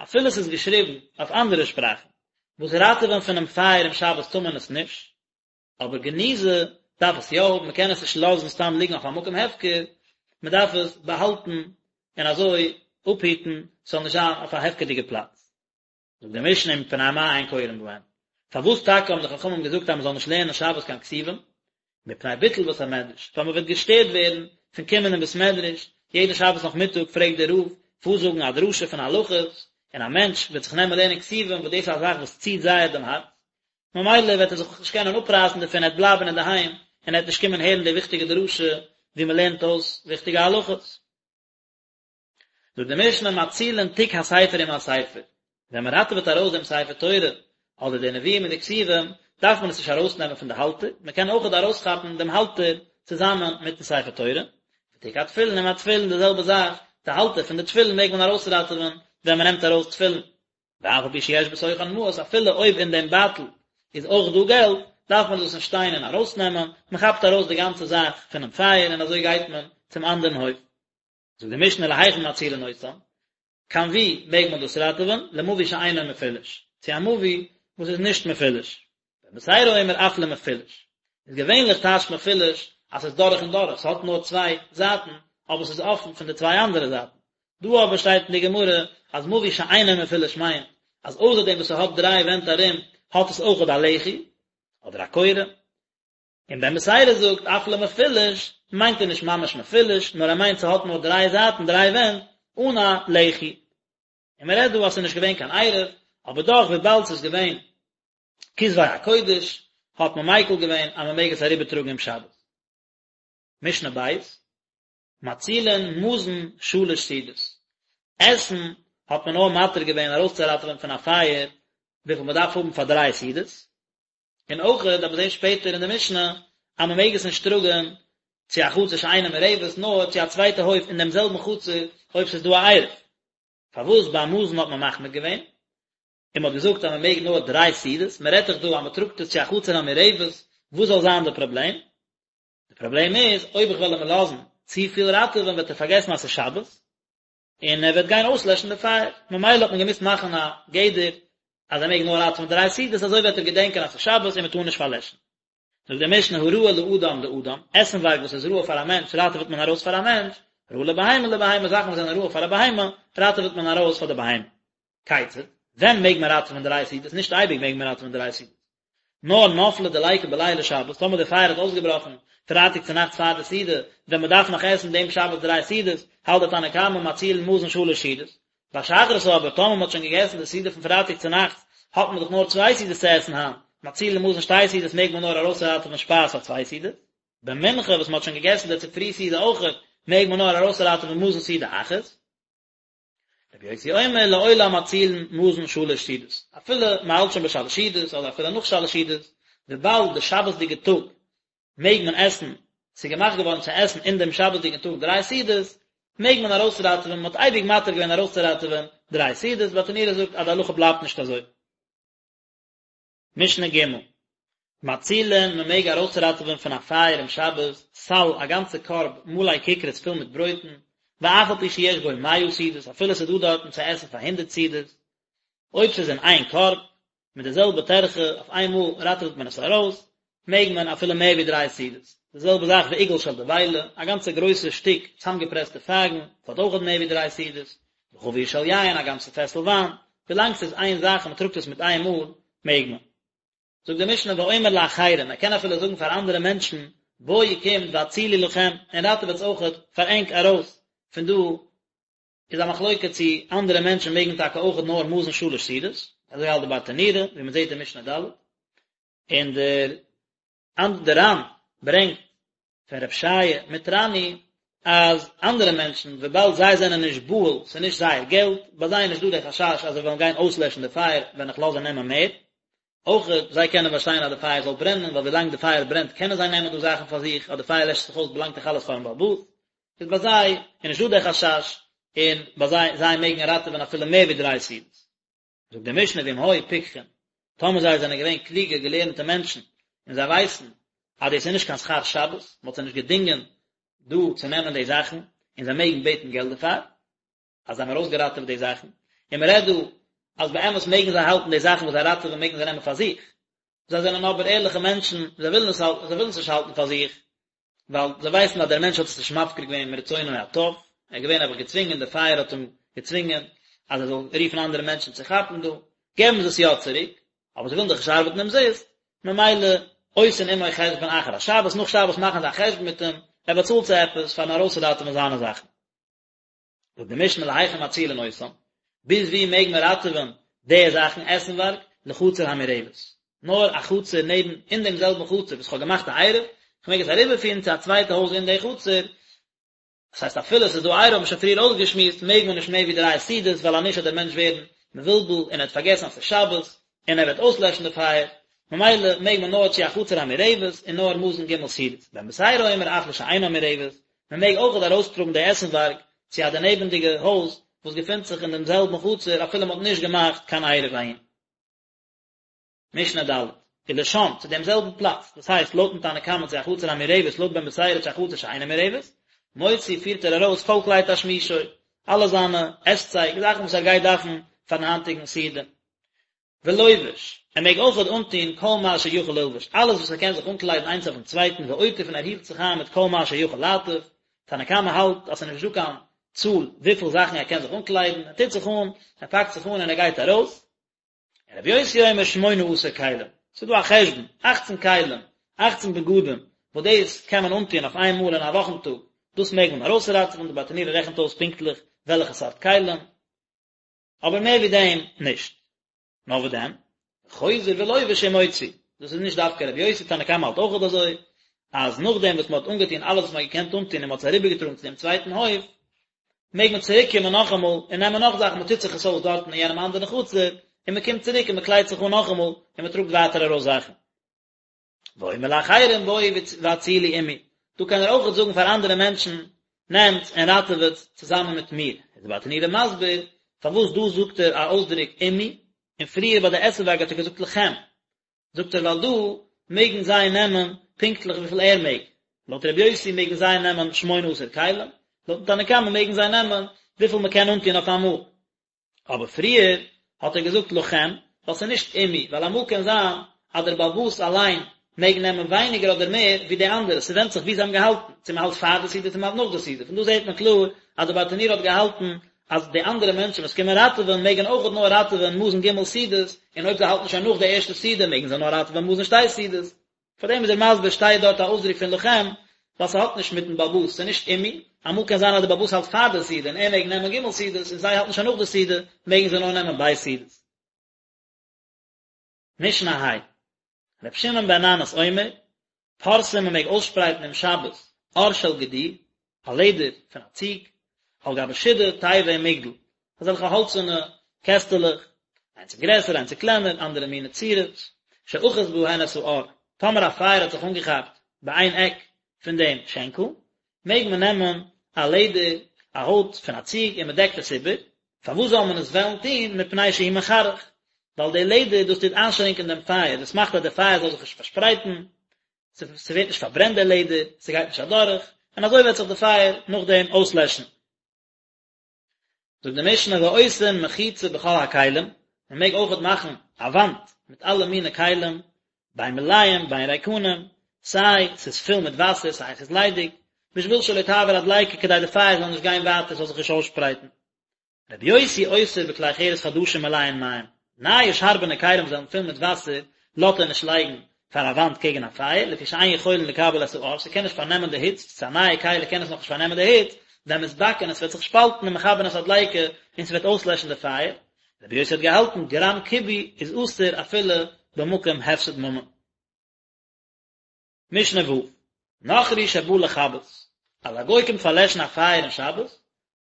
אפילו עס איז געשריבן אויף אנדערע שפראכן, וואס ראטעווען פונעם פייער אום שבת טאר מען עס נישט, אבער גניזה דארף עס יא האבן, מען קען עס נישט לאזן סתם ליגן אויף א מקום הפקר, מען דארף עס באהאלטן און אזוי אפהיטן ס'זאל נישט זיין אויף א הפקר'דיגע פלאץ. זאגט די משנה ומפני מה אין קורין בהן, פארוואס טאקע האבן די חכמים געזאגט אז מען זאל נישט לערנען שבת קיין כתובים? מפני ביטול בית המדרש, ווייל מען וועט געשטערט ווערן פון קומען אין בית מדרש, יעדן שבת נאכמיטאג פלעגט דער רב פארזאגן א דרשה פון הלכות, און א מענטש וועט זיך נעמען לערנען כתובים וואס דאס איז א זאך וואס ציט זייער דעם הארץ, ממילא וועט ער זיך נישט קענען אפרייסן דערפון, ער וועט בלייבן אינדערהיים און ער וועט נישט קומען הערן די וויכטיגע דרשה וואו מען לערנט אויס וויכטיגע הלכות. זאגט די משנה מצילין תיק הספר עם הספר, ווען מען ראטעוועט ארויס דעם ספר תורה אדער די נביאים און די כתובים, דארף מען עס נישט ארויסנעמען פון די האלטער, מען קען אויכעט ארויסכאפן דעם האלטער צוזאמען מיטן ספר תורה, ותיק התפילין עם התפילין די זעלבע זאך, די האלטער פון די תפילין מעג מען ארויסראטעווען ווען מען נעמט ארויס תפילין. ואף על פי שיש בתוכן מעות, אפילו אויב אין דעם בייטל איז אויך דא געלט, דארף מען דאס נישט שטיין און ארויסנעמען, מען כאפט ארויס די גאנצע זאך פונעם פייער און אזוי גייט מען צום אנדערן הויף. זאגט די משנה להיכן מצילין אותן, קיין וואו מעג מען דאס ראטעווען, למבוי שאינו מפולש, צו א מבוי וואס איז נישט מפולש. בן בתירא אומר אף למפולש, איז געווענליך טייטשט מפולש אז ס'איז דורך און דורך, ס'האט נאר צוויי זייטן, אבער ס'איז אפן פון די צוויי אנדערע זייטן. דא אבער שטייט אין די גמרא אז מבוי שאינו מפולש מיינט אז אויסער דעם וואס ס'האט דריי ווענט ארום האט עס אויכעט א לחי אדער א קורה. און בן בתירא זאגט אף למפולש מיינט ער נישט ממש מפולש נאר ער מיינט ס'האט נאר דריי זייטן דריי ווענט אן א לחי. און מ'רעדט דא אז ס'איז נישט געווען קיין עירוב, אבער דאך וויבאלד ס'איז געווען כתבי הקודש האט מען מיקל געווען אז מען מעג עס אריבער טראגן אום שבת. משנה ב', מצילין מזון שלש סעודות, עסן האט מען נאר מתיר געווען ארויסצוראטעווען פון א פייער וויפיל מען דארף האבן פאר דריי סעודות, און אויך וועט מען זען שפעטער אין די משנה אז מען מעג עס נישט טראגן צו א חצר שאינה מעורבת נאר צו א צווייטע הויף אין דעם זעלבן חצר אויב ס'איז דא א עירוב. פארוואס ביי מזון האט מען מחמיר געווען? און מען האט געזאגט אז מען מעג נאר דריי סעודות, מען רעדט דאך דא אז מען טראגט עס צו א חצר המעורבת, וואס זאל זיין די פראבלעם? די פראבלעם איז, אויב איך וועל אים לאזן צופיל ראטעווען וועט ער פארגעסן אז ס'איז שבת, און ער וועט גיין אויסלעשן די פייער, ממילא האט מען געמוזט מאכן א גדר אז ער מעג נאר ראטעווען דריי סעודות, אזוי וועט ער געדענקען אז ס'איז שבת און מען טאר נישט פארלעשן. זאגט די משנה הראוי לאדם לאדם, עסנווארג וואס איז ראוי פאר א מענטש ראטעוועט מען ארויס פאר א מענטש, ראוי לבהמה לבהמה, זאכן וואס זענען ראוי פאר א בהמה ראטעוועט מען ארויס פאר די בהמה. כיצד? ווען מעג מען ראטעווען דריי סעודות? נישט אייביג מעג מען ראטעווען דריי סעודות. נאר נפלה דליקה בלילי שבת, טאמער די פייער האט אויסגעבראכן פרייטאג צו נאכטס פאר די סעודה, ווען מען דארף נאך עסן דעם שבת דריי סעודות, האלט די תנא קמא מצילין מזון שלש סעודות. ביי שחרית אבער, טאמער מען האט שוין געגעסן די סעודה פון פרייטאג צו נאכטס, האט מען דאך נאר צוויי סעודות צו עסן היינט, מצילין מזון שתי סעודות מעג מען נאר ארויסראטעווען שפייז פאר צוויי סעודות. במנחה וואס מען האט שוין געגעסן די צופרי סעודה אויכעט, מעג מען נאר ארויסראטעווען מזון סעודה אחת. רבי יוסי אומר לעולם מצילין מזון שלש סעודות, אפילו מען האלט שוין ביי שלש סעודות אדער אפילו נאך שלש סעודות, וויבאלד די שבת'דיגע טאג מעג מען עסן, ס'איז געמאכט געווארן צו עסן אין דעם שבת'דיגן טאג דריי סעודות, מעג מען ארויסראטעווען, מען האט אייביג מתיר געווען ארויסצוראטעווען דריי סעודות, ברטנורא זאגט אז די הלכה בלייבט נישט אזוי. משנה ג', מצילין, מען מעג ארויסראטעווען פון א פייער אום שבת, סל, א גאנצע קארב, מלא כיכרות פול מיט ברויטן, ואף על פי שיש בו מאה סעודות, אפילו ס'איז דא דארטן צו עסן פאר הונדערט סעודות, אויב ס'איז אין איין קארב, מיט די זעלבע טרחה, אויף איין מאל ראטעוועט מען עס ארויס, מעג מען אפילו מער ווי דריי סעודות. די זעלבע זאך ועיגול של דבילה, א גאנצע גרויסע שטיק צאמגעפרעסטע פייגן, ס'האט אויכעט מער ווי דריי סעודות, וחבית של יין, א גאנצע פעסל וויין, ווילאנג ס'איז איין זאך און מ'טראגט עס מיט איין מאל, מעג מען. זאגט די משנה ואומר לאחרים, ער קען אפילו זאגן פאר אנדערע מענטשן, בואו קומט והצילו לכם, און ראטעוועטס אויכעט פאר ענק ארויס פון דא, איז א מחלוקה צו אנדערע מענטשן מעגן טאקע אויכעט נאר מזון שלש סעודות, אזוי האלט די ברטנורא, ווי מען זעט אין משנה ד', און דער דער ר"ן ברענגט פון רב שעיה מטרני אז אנדערע מענטשן וויבאלד זיי זענען נישט בהול, ס'איז נישט זייער געלט, ביי זיי איז נישט דא דער חשש אז זיי וועלן גיין אויסלעשן די פייער ווען איך לאז זיי נעמען מער, אויך זיי קענען באשטיין אז די פייער זאל ברענען ווייל ווילאנג די פייער ברענט קענען זיי נעמען דא זאכן פאר זיך, אז די פייער לעשט זיך אויס באלאנגט דאך אלעס פארן בעל הבית, איז ביי זיי איז נישט דא דער חשש און ביי זיי זיי מעגן ראטעווען אפילו מער ווי דריי סעודות. זאגט די משנה ואם היו פיקחים, טאמער זיי זענען געווען קלוגע געלערנטע מענטשן, און זיי ווייסן אז דאס איז נישט קיין שכר שבת, מען האט זיי נישט געדינגען דא צו נעמען די זאכן, און זיי מעגן בעטן געלט דערפאר, אז זיי האבן ארויסגעראטעוועט די זאכן, און מען רעדט דא אז באמת מעגן זיי האלטן די זאכן וואס זיי ראטעווען מעגן זיי נעמען פאר זיך, זיי זענען אבער ערליכע מענטשן, זיי ווילן עס האלטן, זיי ווילן עס נישט האלטן פאר זיך, ווייל זיי ווייסן אז דער מענטש האט עס נישט מפקיר געווען מרצונו הטוב, ער איז געווען נעבעך געצווינגען, דער פייער האט אים געצווינגען אז ער זאל רופן אנדערע מענטשן צו כאפן דא, געבן זיי עס יא צוריק, אבער זיי ווילן דאך נישט ארבעטן אומזיסט, ממילא עושין עמו חשבון אחר השבת, נאך שבת מאכן זיי א חשבון מיט אים, ער באצאלט זיי עפעס פארן ארויסראטעווען זיינע זאכן. זאגט די משנה להיכן מצילין אותם, ביז ווי מעג מען ראטעווען די זאכן עסנווארג, לחצר המעורבת, נאר א חצר נעבן אין דעם זעלבן חצר וואס כ'האב געמאכט א עירוב, כ'מעג עס אריבערפירן צו א צווייטע הויז אין די חצר, דאס הייסט אפילו עס איז דא עירוב האט מען שוין פריער אויסגעשמועסט מעג מען נישט מער ווי דריי סעודות ווייל אנישט וועט דער מענטש ווערן מבולבל און ער וועט פארגעסן אז ס'איז שבת און ער וועט אויסלעשן די פייער, ממילא מעג מען נאר צו א חצר המעורבת און נאר מזון ג' סעודות, בן בתירא אומר אף לשאינה מעורבת, מען מעג אויכעט ארויסטראגן די עסנווארג צו א דערנעבנדיגע הויז וואס געפינט זיך אין דעם זעלבן חצר אפילו מען האט נישט געמאכט קיין עירוב אהין. משנה ד', ולשם, צו דעם זעלבן פלאץ, דאס הייסט לויטן תנא קמא צו א חצר המעורבת לויט בן בתירא צו א חצר שאינה מעורבת, מוציא פירט ער ארויס כל כלי תשמישו, אלע זיינע עסצייג, זאכן וואס ער גייט דארפן פארן היינטיגן סעודה. ולובש, ער מעג אויכעט אנטוהן כל מה שיכול ללבוש, אלעס וואס ער קען זיך אנקליידן איינס אויפן צווייטן, ועוטף און ער הילט זיך איין מיט כל מה שיכול לעטוף, תנא קמא האלט אז ס'איז נישט דא קיין צאל וויפיל זאכן ער קען זיך אנקליידן, ער טוט זיך אן, ער פאקט זיך אן און ער גייט ארויס. און רבי יוסי אומר שמונה עשר כלים, ס'איז דא א חשבון, אכצן כלים, אכצן בגדים, וואס דאס קען מען אנטוהן אויף איין מאל אין א וואכן טאג, דאס מעג מען ארויסראטעווען, די ברטנורא רעכנט אויס פונקטליך וועלכע סארט כלים, אבער מער ווי דעם נישט. נאר וואס דען? חוזר ולובש ומוציא. דאס איז נישט דווקא רבי יוסי, תנא קמא האלט אויכעט אזוי, אז נאכדעם וואס מען האט אנגעטון אלעס וואס מען האט געקענט אנטון און מען האט עס אריבערגעטראגן צו דעם צווייטן הויף, מעג מען צוריק קומען נאכאמאל און נעמען נאך זאכן, מען טוט זיך עס אויס דארטן אין יענעם אנדערן חצר, און מען קומט צוריק און מען קליידט זיך אן נאכאמאל און מען טראגט ווייטער ארויס זאכן. ואומר לאחרים בואו והצילו עמי, דא קען ער אויכעט זאגן פאר אנדערע מענטשן, נעמטס און ראטעוועטס צוזאמען מיט מיר. איז די ברטנורא מסביר פארוואס דא זאגט ער א אויסדרוק עמי, און פריער ביי די עסנווארג האט ער געזאגט לכם, זאגט ער ווייל דא מעגן זיי נעמען פונקטליך וויפיל ער מעג, לויט רבי יוסי מעגן זיי נעמען שמונה עשר כלים, לויטן תנא קמא מעגן זיי נעמען וויפיל מען קען אנטון אויף אמאל. אבער פריער האט ער געזאגט לכם, ווייל ס'איז נישט עמי, ווייל אמאל קען זיין אז דער בעל הבית אליין מעג נעמען ווייניגער אדער מער ווי די אנדערע, ס'ווענדט זיך ווי זיי האבן געהאלטן, צו מ'האלט פאר די סעודה צו מ'האלט נאך די סעודה, פון דא זעט מען קלאר אז דער ברטנורא האט געהאלטן אז די אנדערע מענטשן וואס קומען ראטעווען מעגן אויכעט נאר ראטעווען מזון ג' סעודות, און אויב זיי האלטן שוין נאך די ערשטע סעודה מעגן זיי נאר ראטעווען מזון שתי סעודות. פאר דעם איז ער מסביר שטייט דארט א אויסדרוק פון לכם, ווייל ס'האט נישט מיטן בעל הבית, ס'איז נישט עמי, אמאל קען זיין אז דער בעל הבית האלט פאר די סעודה און ער מעג נעמען ג' סעודות און זיי האלטן שוין נאך די סעודה מעגן זיי נאר נעמען ב' סעודות. משנה ה'. ר' שמעון בן ננס אומר, פורסין מען מעג אויסשפרייטן אום שבת עור של גדי, א לעדער פון א ציג, על גבי שידה, תיבה ומגדל, אזעלכע האלצערנע קעסטעלעך, איינס איז גרעסער איינס איז קלענער, אנדערע מיני צורות, שאחז בהן את האור, טאמער א פייער האט זיך אנגעכאפט ביי איין עק פון דעם שענקל, מעג מען נעמען א לעדער, א הויט פון א ציג און מען דעקט עס איבער, פארוואס זאל מען עס וועלן טון, מפני שהוא מחרך, ווייל די לעדער דאס טוט איינשרינקען דעם פייער, דאס מאכט אז דער פייער זאל זיך נישט פארשפרייטן, ס'ווערט נישט פארברענט דער לעדער, ס'גייט נישט אדורך, און אזוי וועט זיך די פייער נאכדעם אויסלעשן. זאגט די משנה ועושין מחיצה בכל הכלים, מען מעג אויכעט מאכן א וואנט מיט אלע מיני כלים, בין מלאים בין ריקנים, סיי ס'איז פול מיט וואסער סיי ס'איז ליידיג, בשביל שלא תעבור הדליקה כדי די פייער זאל נישט גיין ווייטער ס'זאל זיך נישט אויסשפרייטן. רבי יוסי אוסר בכלי חרס חדשים מלאין מים, נייע שארבענע כלים וואס זענען פול מיט וואסער לאזט ער נישט לייגן. פאר א וואנט קעגן א פייער, לפי שאין יכולין לקבל את האור, ס'קען נישט פארנעמען די היץ, ס'איז א נייע כלי קען עס נאכנישט פארנעמען די היץ, והן מתבקעין עס וועט זיך שפאלטן ומכבין את הדליקה און ס'וועט אויסלעשן די פייער, רבי יוסי האט געהאלטן גרם כיבוי איז אסור אפילו במקום הפסד ממון. משנה ו', נכרי שבא לכבות, אז א גוי קומט פארלעשן א פייער אין שבת,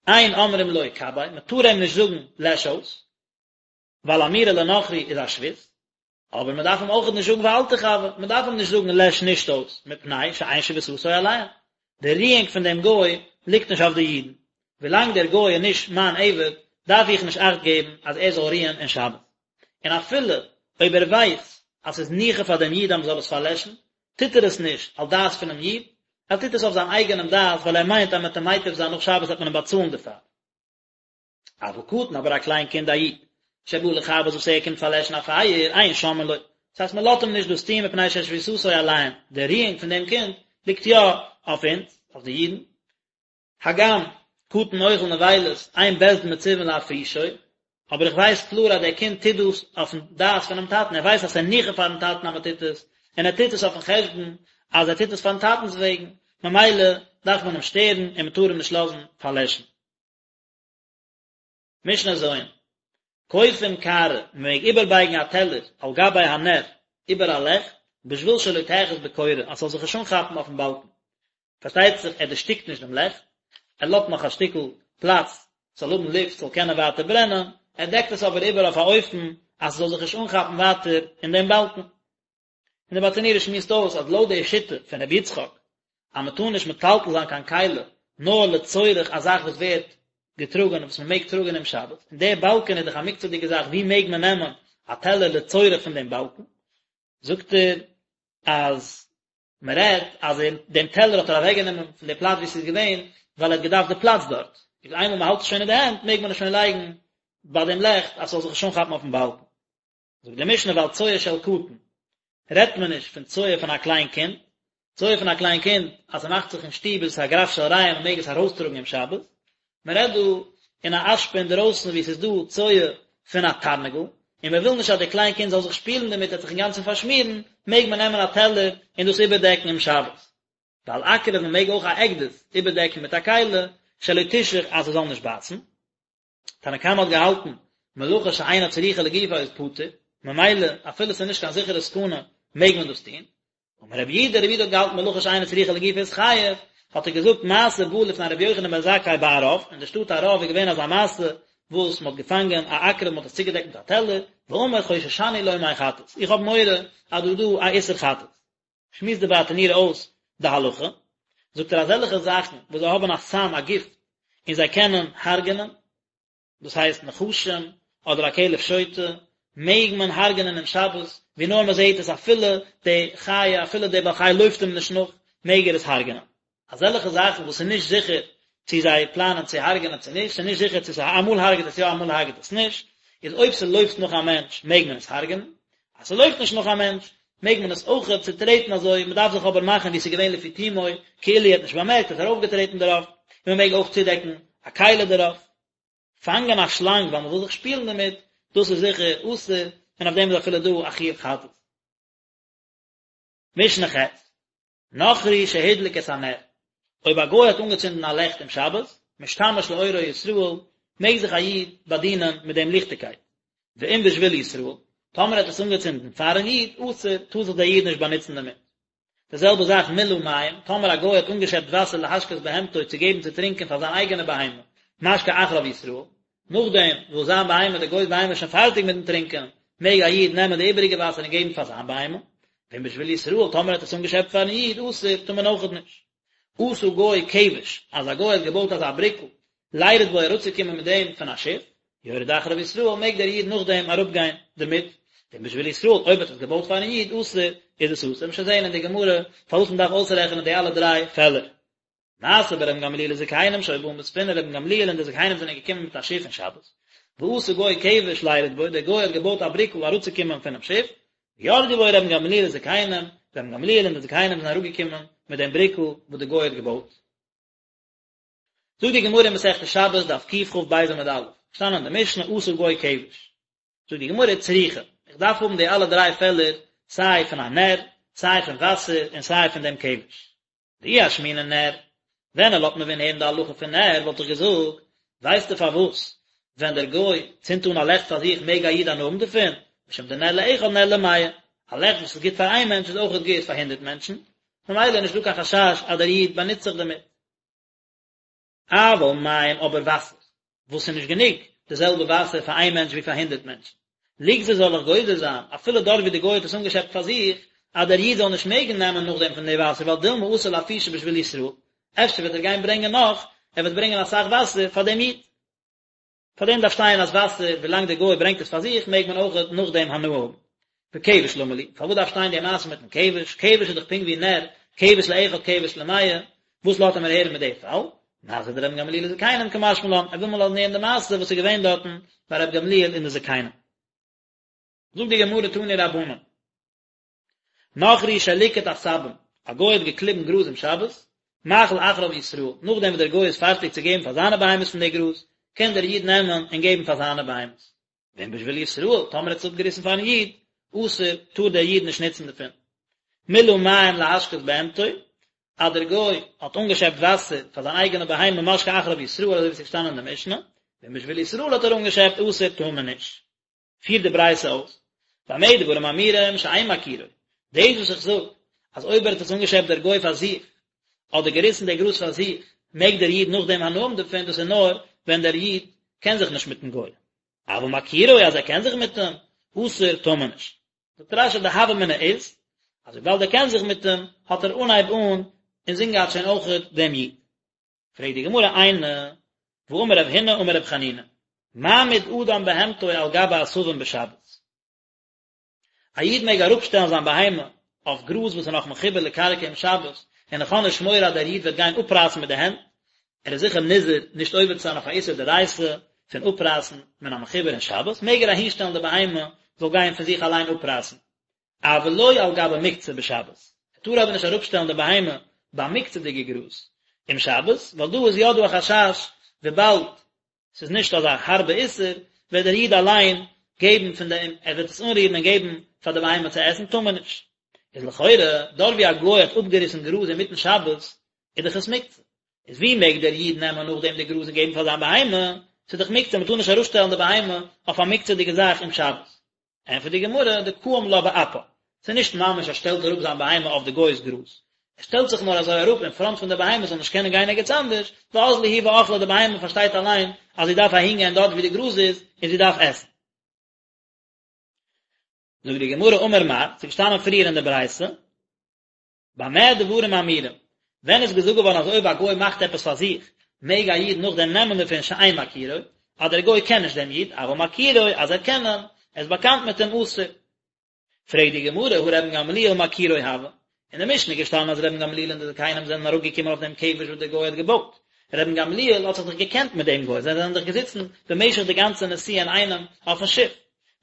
אין אומרים לו כבה, מען טאר אים נישט זאגן לעש אויס, ווייל אמירה לנכרי איז א שבות, אבער מען דארף אים אויכעט נישט זאגן ואל תכבה, מען דארף אים נישט זאגן לעש נישט אויס, מפני שאין שביתתו עליהם, די רואונג פון דעם גוי ליגט נישט אויף די אידן, ווילאנג דער גוי איז נישט מיין עבד, דארף איך נישט אכט געבן אז ער זאל רוען אין שבת. און אפילו אויב ער ווייסט אז ס'איז ניחא פאר דעם איד אז מ'זאל עס פארלעשן, טוט ער עס נישט על דעת פונעם איד, ער טוט עס אויף זיין אייגענעם דעת ווייל ער מיינט אז מ'וועט אים מיטיב זיין נאך שבת וועט מען אים באצאלן דערפאר. אבל קטן אבער א קליין קינד א איד, שבא לכבות וואס ער קומט פארלעשן א פייער, אין שומעין לו, דאס הייסט מ'לאזט אים נישט דאס טון מפני ששביתתו עליהם, די רואונג פון דעם קינד ליגט יא אויף אונז, אויף די אידן. הגם, קטן אוכל נבילות, אין בית דין מצווין להפרישו, אבער איך ווייס קלאר אז דער קינד טוט דאס אויפן דעת פונעם טאטן, ער ווייסט אז ס'איז ניחא פארן טאטן אז מען טוט עס, און ער טוט עס אויפן חשבון אז ער טוט עס פארן טאטנ'ס וועגן, ממילא דארף מען אים שטערן און מען טאר אים נישט לאזן פארלעשן. משנה ז', כופין קערה, מען מעג איבערבייגן א טעלער על גבי הנר, איבער א לעכט, בשביל שלא תאחז בקורה, אז ס'זאל זיך נישט אנכאפן אויפן באלקן. פארשטייט זיך ער דערשטיקט נישט דעם לעכט, ער לאזט נאך א שטיקל פלאץ ס'זאל האבן לופט ס'זאל קענען ווייטער ברענען, ער דעקט עס אבער איבער אויף א אופן אז ס'זאל זיך נישט אנכאפן ווייטער אין דעם באלקן. און דער ברטנורא שמועסט אויס אז לויט די שיטה פון רבי יצחק אז מען טאר נישט מטלטל זיין קיין כלי נאר לצורך א זאך וואס ווערט געטראגען וואס מען מעג טראגען אום שבת, און דער באלקען איז דאך א מוקצה'דיגע זאך ווי מעג מען נעמען א טעלער לצורך פון דעם באלקן, זאגט ער אז מען רעדט אז ער דעם טעלער האט ער אוועק גענומען פון די פלאץ ווי עס איז געווען ווייל ער האט געדארפט די פלאץ דארט, איז איינמאל מען האלט עס שוין אין די הענט מעג מען עס שוין לייגן ביי דעם לעכט אז ס'זאל זיך נישט אנכאפן אויפן באלקן. זאגט די משנה ועל צואה של קטן רעדט מען נישט פון צואה פון א קליין קינד, צואה פון א קליין קינד אז ס'מאכט זיך אין שטוב איז עס א גרף של רעי און מ'מעג עס ארויסטראגן אום שבת, מען רעדט דא אין א אשפה אינדערויסן וואו ס'איז דא צואה פון א תרנגול, און מען וויל נישט אז די קליין קינד זאל זיך שפילן דערמיט ער וועט זיך אינגאנצן פארשמירן, מעג מען נעמען א טעלער און דאס איבערדעקן אום שבת. ועל עקרב מען מעג אויך א עקדיש איבערדעקן מיט א כלי שלא תשוך אז ס'זאל נישט בייסן. תנא קמא האט געהאלטן, מלאכה שאינה צריכה לגופה איז פטור, ממילא אפילו ס'איז נישט קיין זיכערע סכנה מעג מען דאס טון. אמר רבי יהודה, רבי יהודה האט געהאלטן מלאכה שאינה צריכה לגופה איז חייב, האט ער געזאגט מעשה בא לפני רבי יוחנן בן זכאי בערב, אין די שטאט ערב איז געווען אזא מעשה וואס מ'האט געפאנגען א עקרב מ'האט עס צוגעדעקט מיט א טעלער, ואמר חוששני לומר חטאת, איך האב מורא אז דא איז דא א איסור חטאת. שמועסט די ברטנורא אויס די הלכה, זאגט ער אזעלכע זאכן וואס זיי האבן א סם א גיפט און זיי קענען הרג'נען, דאס הייסט נחשים אדער א כלב שוטה, מעג מען הרג'נען אום שבת, ווי נאר מען זעט עס אפילו די חיה אפילו די בעל חי לויפט אים נישט נאך, מעג ער עס הרג'נען. אזעלכע זאכן וואס איז נישט זיכער צו זיי פלאנען צו הרג'נען צו נישט, ס'איז נישט זיכער צו ס'איז אמאל הרג'ט עס יא אמאל הרג'ט עס נישט, איז אויב ס'לויפט נאך א מענטש מעג מען עס הרג'נען, אז ס'לויפט נישט נאך א מענטש מעג מען עס אויכעט צוטרעטן אזוי, מ'דארף זיך אבער מאכן ווי ס'איז געווען לפי תומו, כאילו ער האט נישט באמערקט ער האט ארויפגעטרעטן דערויף, און מ'מעג אויך צודעקן א כלי דערויף. פאנגען א שלאנג ווייל מ'וויל זיך שפילן דערמיט, דאס איז זיכער אסור, און אויף דעם איז אפילו דא א חיוב חטאת. משנה ח'. נכרי שהדליק את הנר, אויב א גוי האט אנגעצינדן א לעכט אום שבת, משתמש לאורו ישראל, מעג זיך א איד באדינען מיט דעם ליכטיגקייט. ואם בשביל ישראל, טאמער ער האט עס אנגעצינדן פארן איד, אסור, טאר זיך דער איד נישט באנוצן דערמיט. די זעלבע זאך מילא מים, טאמער א גוי האט אנגעשעפט וואסער להשקות בהמתו צו געבן צו טרינקען פאר זיין אייגענע בהמה, משקה אחריו ישראל, נאכדעם וואס זיין בהמה, די גוי'ס בהמה איז שוין פארטיג מיטן טרינקען, מעג א איד נעמען די איבעריגע וואסער און געבן פאר זיין בהמה. ואם בשביל ישראל, טאמער האט עס אנגעשעפט פארן איד, אסור, טאר מען אויכעט נישט. עשה גוי כבש, אז א גוי האט געבויט אזא בריקל, לירד בו אראפצוקומען מיט דעם פון א שיף, יורד אחריו ישראל, מעג דער איד נאכדעם אראפגיין דערמיט. ואם בשביל ישראל, אויב האט עס געבויט פארן איד, אסור, איז עס אסור. מ'וועט שוין זען אין די גמרא פארוואס מען דארף אויסרעכענען די אלע דריי פעלער. מעשה ברבן גמליאל וזקנים שהיו באים בספינה רבן גמליאל און די זקנים זענען געקומען מיט א שיף אין שבת ועשה גוי כבש לירד בו דער גוי האט געבויט א בריקל אראפצוקומען פונעם שיף וירדו בו רבן גמליאל וזקנים רבן גמליאל און די זקנים זענען אראפגעקומען מיט דעם בריקל וואס דער גוי האט געבויט. זאגט די גמרא אין מסכת שבת דף קכ"ב עמוד א', שטאנען אין די משנה עשה גוי כבש. זאגט די גמרא צריכא, איך דארף האבן די אלע דריי פעלער, סיי פון א נר, סיי פון וואסער און סיי פון דעם כבש. דאי אשמעינן נר, ווען ער לאזט מיר ווען הערן די הלכה פון נר וואלט איך געזאגט, ווייסטו פארוואס ווען דער גוי צינדט אן א לעכט פאר זיך מעג א איד הנאה האבן דערפון, משום דנר לאחד נר למאה, א לעכט וואס איז גוט פאר איין מענטש איז אויכעט גוט פאר הונדרעט מענטשן, ממילא איז נישטא קיין חשש אז דער איד באנוצט זיך דערמיט. אבל מים אבער וואסער, וואס איז נישט גענוג די זעלבע וואסער פאר איין מענטש ווי פאר הונדרעט מענטשן, ליגזור זאל איך גוזר זיין, אפילו דארט ווי די גוי האט עס אנגעשעפט פאר זיך, אז דער איד זאל נישט מעגן נעמען נאכדעם פון די וואסער ווייל דילמא אתי לאפושי בשביל ישראל, אפשר וועט ער גיין ברענגען נאך, ער וועט ברענגען אסאך וואסער פאר דעם איד. פאר דעם דארף שטיין אז וואסער, ווילאנג דער גוי ברענגט עס פאר זיך, מעג מען אויך נאכדעם הנאה האבן. וכבש למה לי, פארוואס דארף שטיין די מעשה מיטן כבש, כבש איז דאך פונקט ווי נר, כבש לאחד כבש למאה, וואס לאזט ער מיר הערן מיט די פאל? מעשה דרבן גמליאל וזקנים קא משמע לן, ער וויל מיר לאזן הערן די מעשה וואס איז געווען דארטן ביי רבי גמליאל און די זקנים. זאגט די גמרא תנו רבנן, נכרי שליקט עשבים, א גוי האט געקליבן גראז אום שבת, מאכיל אחריו ישראל, נאכדעם וואס דער גוי איז פארטיג צו געבן פאר זיינע בהמות פון די גראז, קען דער איד נעמען און געבן פאר זיינע בהמות. ואם בשביל ישראל, טאמער ער האט עס אפגעריסן פארן איד, אסור, טאר דער איד נישט נוצן דערפון. מילא מים להשקות בהמתו, אז דער גוי האט אנגעשעפט וואסער פאר זיין אייגענע בהמה משקה אחריו ישראל, אזוי ווי עס איז געשטאנען אין די משנה, ואם בשביל ישראל האט ער אנגעשעפט, אסור, טאר מען נישט. פירט די ברייתא אויס, במה דברים אמורים שאין מכירו, דאס וואס איך זאג אז אויב ער האט עס אנגעשעפט דער גוי פאר זיך, אדער געריסן די גראז פאר זיך, מעג דער איד נאכדעם הנאה האבן דערפון, דאס איז נאר ווען דער איד קען זיך נישט מיטן גוי, אבל מכירו אז ער קען זיך מיט אים, אסור טאר מען נישט. זאגט רש"י די הוה אמינא איז, אז וויבאלד ער קען זיך מיט אים, האט ער אנהייב אן אינזין געהאט שוין אויכעט דעם איד. פרעגט די גמרא איני, והאמר רב הונא אמר רב חנינא, מעמיד אדם בהמתו על גבי עשבים בשבת. א איד מעג אראפשטעלן זיין בהמה אויף גראז וואס איז נאך מחובר לקרקע אום שבת, און איך האב נישט מורא אז דער איד וועט גיין אפרייסן מיט די הענט, ער איז זיכער נזהר נישט עובר צו זיין אויף א איסור דאורייתא פון אפרייסן מן המחובר אין שבת, מעג ער אהינשטעלן די בהמה זאל גיין פון זיך אליין אפרייסן. אבל לא על גבי מוקצה בשבת, ער טאר אבער נישט אראפשטעלן די בהמה ביי מוקצה'דיגע גראז אום שבת, ווייל דא איז יא דא א חשש וויבאלד ס'איז נישט אזא הארבע איסור, וועט דער איד אליין געבן פון דעם, ער וועט עס אנרירן און געבן פאר די בהמה צו עסן, טאר מען נישט. איז לכאורה, דארט ווי א גוי האט אפגעריסן גראז אינמיטן שבת, איז דאך עס מוקצה. איז ווי מעג דער איד נעמען נאכדעם די גראז און געבן פאר זיין בהמה? ס'איז דאך מוקצה, מ'טאר נישט אראפשטעלן די בהמה אויף א מוקצה'דיגע זאך אום שבת. ענטפערט די גמרא, דקאים לה באפה, ס'איז נישט ממש ער שטעלט אראפ זיין בהמה אויף די גוי'ס גראז, ער שטעלט זיך נאר אזוי אראפ אין פראנט פון די בהמה זאל נישט קענען גיין ערגעץ אנדערש, ואזלא היא ואכלה די בהמה פארשטייט אליין אז זי דארף אהין גיין דארט ווי די גראז איז און זי דארף עסן. זאגט די גמרא אמר מר, ס'איז געשטאנען פריער אין די ברייתא, במה דברים אמורים? ווען איז געזאגט געווארן אז אויב א גוי מאכט עפעס פאר זיך, מעג א איד נאכדעם נעמען דערפון שאין מכירו, אז דער גוי קען נישט דעם איד, אבל מכירו, אז ער קען אים, ער איז באקאנט מיט אים אסור. פרעגט די גמרא, הא רבן גמליאל מכירו הוה? אין די משנה איז געשטאנען אז רבן גמליאל און די זקנים זענען אראפגעקומען אויף דעם כבש וואס דער גוי האט געבויט. רבן גמליאל האט זיך דאך געקענט מיט דעם גוי, זיי זענען דאך געזיצן במשך די גאנצע נסיעה אינאיינעם אויפן שיף.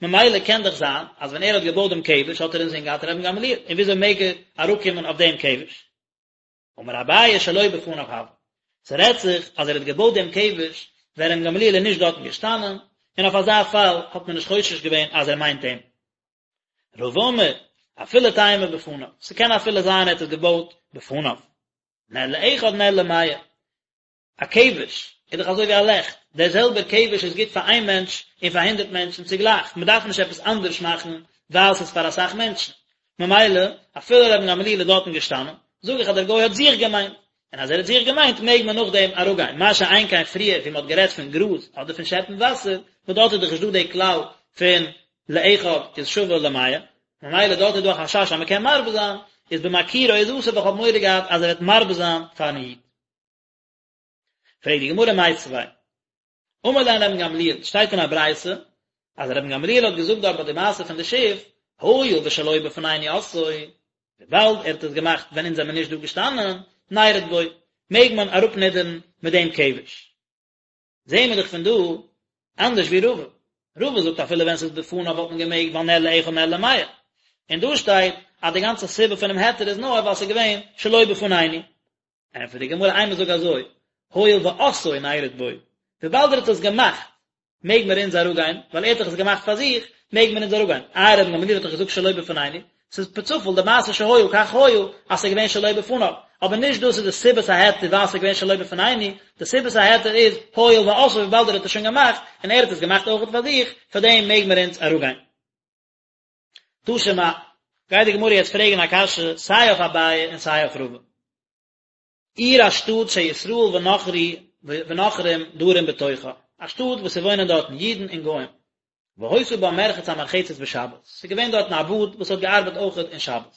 ממילא קען דאך זיין אז ווען ער האט געבויט דעם כבש האט ער אינזין געהאט רבן גמליאל, און וויאזוי מעג ער אראפקומען אויף דעם כבש? אמר אביי שלא בפניו הוה, ס'רעדט זיך אז ער האט געבויט דעם כבש ווען רבן גמליאל איז נישט דארטן געשטאנען, און אויף אזא פאל האט מען נישט חושש געווען אז ער מיינט אים. רבא אמר, אפילו תימא בפניו, ס'קען אפילו זיין ער האט עס געבויט בפניו. נר לאחד נר למאה. א כבש איז דאך אזוי ווי א לעכט, דער זעלבער כבש איז גוט פאר איין מענטש און פאר הונדערט מענטשן צוגלייך, מען דארף נישט עפעס אנדערש מאכן ווייל ס'איז פאר אסאך מענטשן, ממילא אפילו רבן גמליאל איז דארטן געשטאנען, זאג איך אז דער גוי האט זיך געמיינט, און אז ער האט זיך געמיינט מעג מען נאכדעם אראפגיין, מה שאין כן פריער ווי מען האט גערעדט פון גראז אדער פון שעפן וואסער, וואס דארט איז דאך נישט דא די כלל פון לאחד איז שווה למאה, ממילא דארט איז דא א חשש אז מען קען מרבה זיין, איז במכירו איז אסור ווייל איך האב מורא געהאט אז ער וועט מרבה זיין פארן איד. פרעגט די גמרא מיתיבי אמר להן רבן גמליאל, שטייט אין א ברייתא אז רבן גמליאל האט געזאגט דארט ביי די מעשה פון די שיף, הואיל ושלא בפנינו עשאו, וויבאלד ער האט עס געמאכט ווען אונז זעמיר נישט דא געשטאנען, נרד בו, מעג מען אראפנידערן מיט דעם כבש. זעהן מיר דאך פון דא אנדערש ווי רבא. רבא זאגט אפילו ווען ס'איז בפניו וואלט מען געמעגט ווייל נר לאחד נר למאה. און דא שטייט אז די גאנצע סיבה פונעם היתר איז נאר ווייל ס'איז געווען שלא בפנינו. ענטפערט די גמרא אימא זאג אזוי, הואיל ועשאו נרד בו, וויבאלד ער האט עס געמאכט מעג מיר אונז אראפגיין, ווייל ער האט דאך עס געמאכט פאר זיך, מעג מיר אונז אראפגיין. איי רבן גמליאל האט דאך געזאגט שלא בפנינו, ס'איז פערצופאל די מעשה שהיה כך היה אז ס'איז געווען שלא בפניו, אבער נישט דאס איז די סיבת ההיתר ווייל ס'איז געווען שלא בפנינו, די סיבת ההיתר איז הואיל ועשאו וויבאלד ער האט עס שוין געמאכט, און ער האט עס געמאכט אויכעט פאר זיך, פאר דעם מעג מיר אונז אראפגיין. תא שמע, גייט די גמרא יעצט פרעגן א קשיא סיי אויף אביי און סיי אויף רבא. עיר א שטאט שישראל ונכרי ונכרים דרים בתוכה, א שטאט וואס ס'וואוינען דארטן אידן און גוים. והיתה בה מרחץ המרחצת בשבת, ס'איז געווען דארטן א באד וואס האט געארבעט אויכעט אין שבת.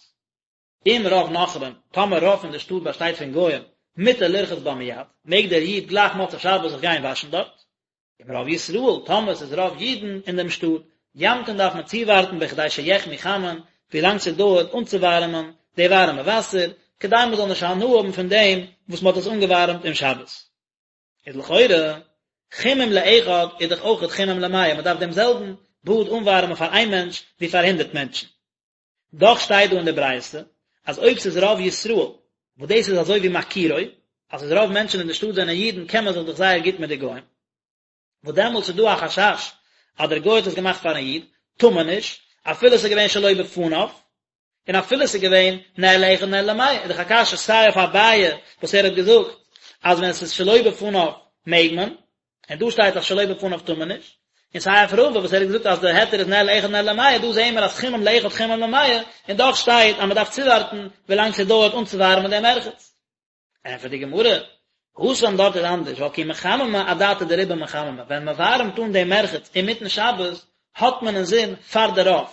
אם רוב נכרים, טאמער רוב פון די שטאט באשטייט פון גוים, מותר לרחוץ בה מיד, מעג דער איד גלייך מוצאי שבת זיך גיין וואשן דארט. אם רוב ישראל, טאמער ס'איז רוב אידן אין דעם שטאט, ימתין דארף מען צואווארטן בכדי שיחמו חמין, ווילאנג ס'דויערט אנצואווארעמען די ווארעמע וואסער, כדי מ'זאל נישט הנאה האבן פון דעם וואס מ'האט עס אנגעווארעמט אום שבת. איז לכאורה, חימום לאחד איז דאך אויכעט חימום למאה, מ'דארף דעם זעלבן באד אנווארעמען פאר איין מענטש ווי פאר הונדרעט מענטשן. דאך שטייט דא אין די ברייתא אז אויב ס'איז רוב ישראל, וואס דאס איז אזוי ווי מכירו, אז ס'איז רוב מענטשן אין די שטאט זענען אידן קען מען זיך דאך זייער גוט מיט די גוים, וואס דעמאלטס איז דא א חשש אז דער גוי האט עס געמאכט פארן איד, טאר מען נישט, אפילו ס'איז געווען שלא בפניו, און אפילו ס'איז געווען נר לאחד נר למאה, איז דאך א קשיא סיי אויף אביי וואס ער האט געזאגט אז ווען ס'איז שלא בפניו מעג מען, און דא שטייט אז שלא בפניו טאר מען נישט, און סיי אויף רבא וואס ער האט געזאגט אז די היתר איז נר לאחד נר למאה, דא זעהן מיר אז חימום לאחד חימום למאה, און דאך שטייט אז מען דארף צואווארטן ווילאנג ס'דויערט אנצואווארעמען דעם מרחץ. ענטפערט די גמרא, התם דארט איז אנדערש, ווייל כי מחממי אדעתא דרובא מחממי, ווען מען ווארעמט אן דעם מרחץ אינמיטן שבת, האט מען אינזין פאר די רוב,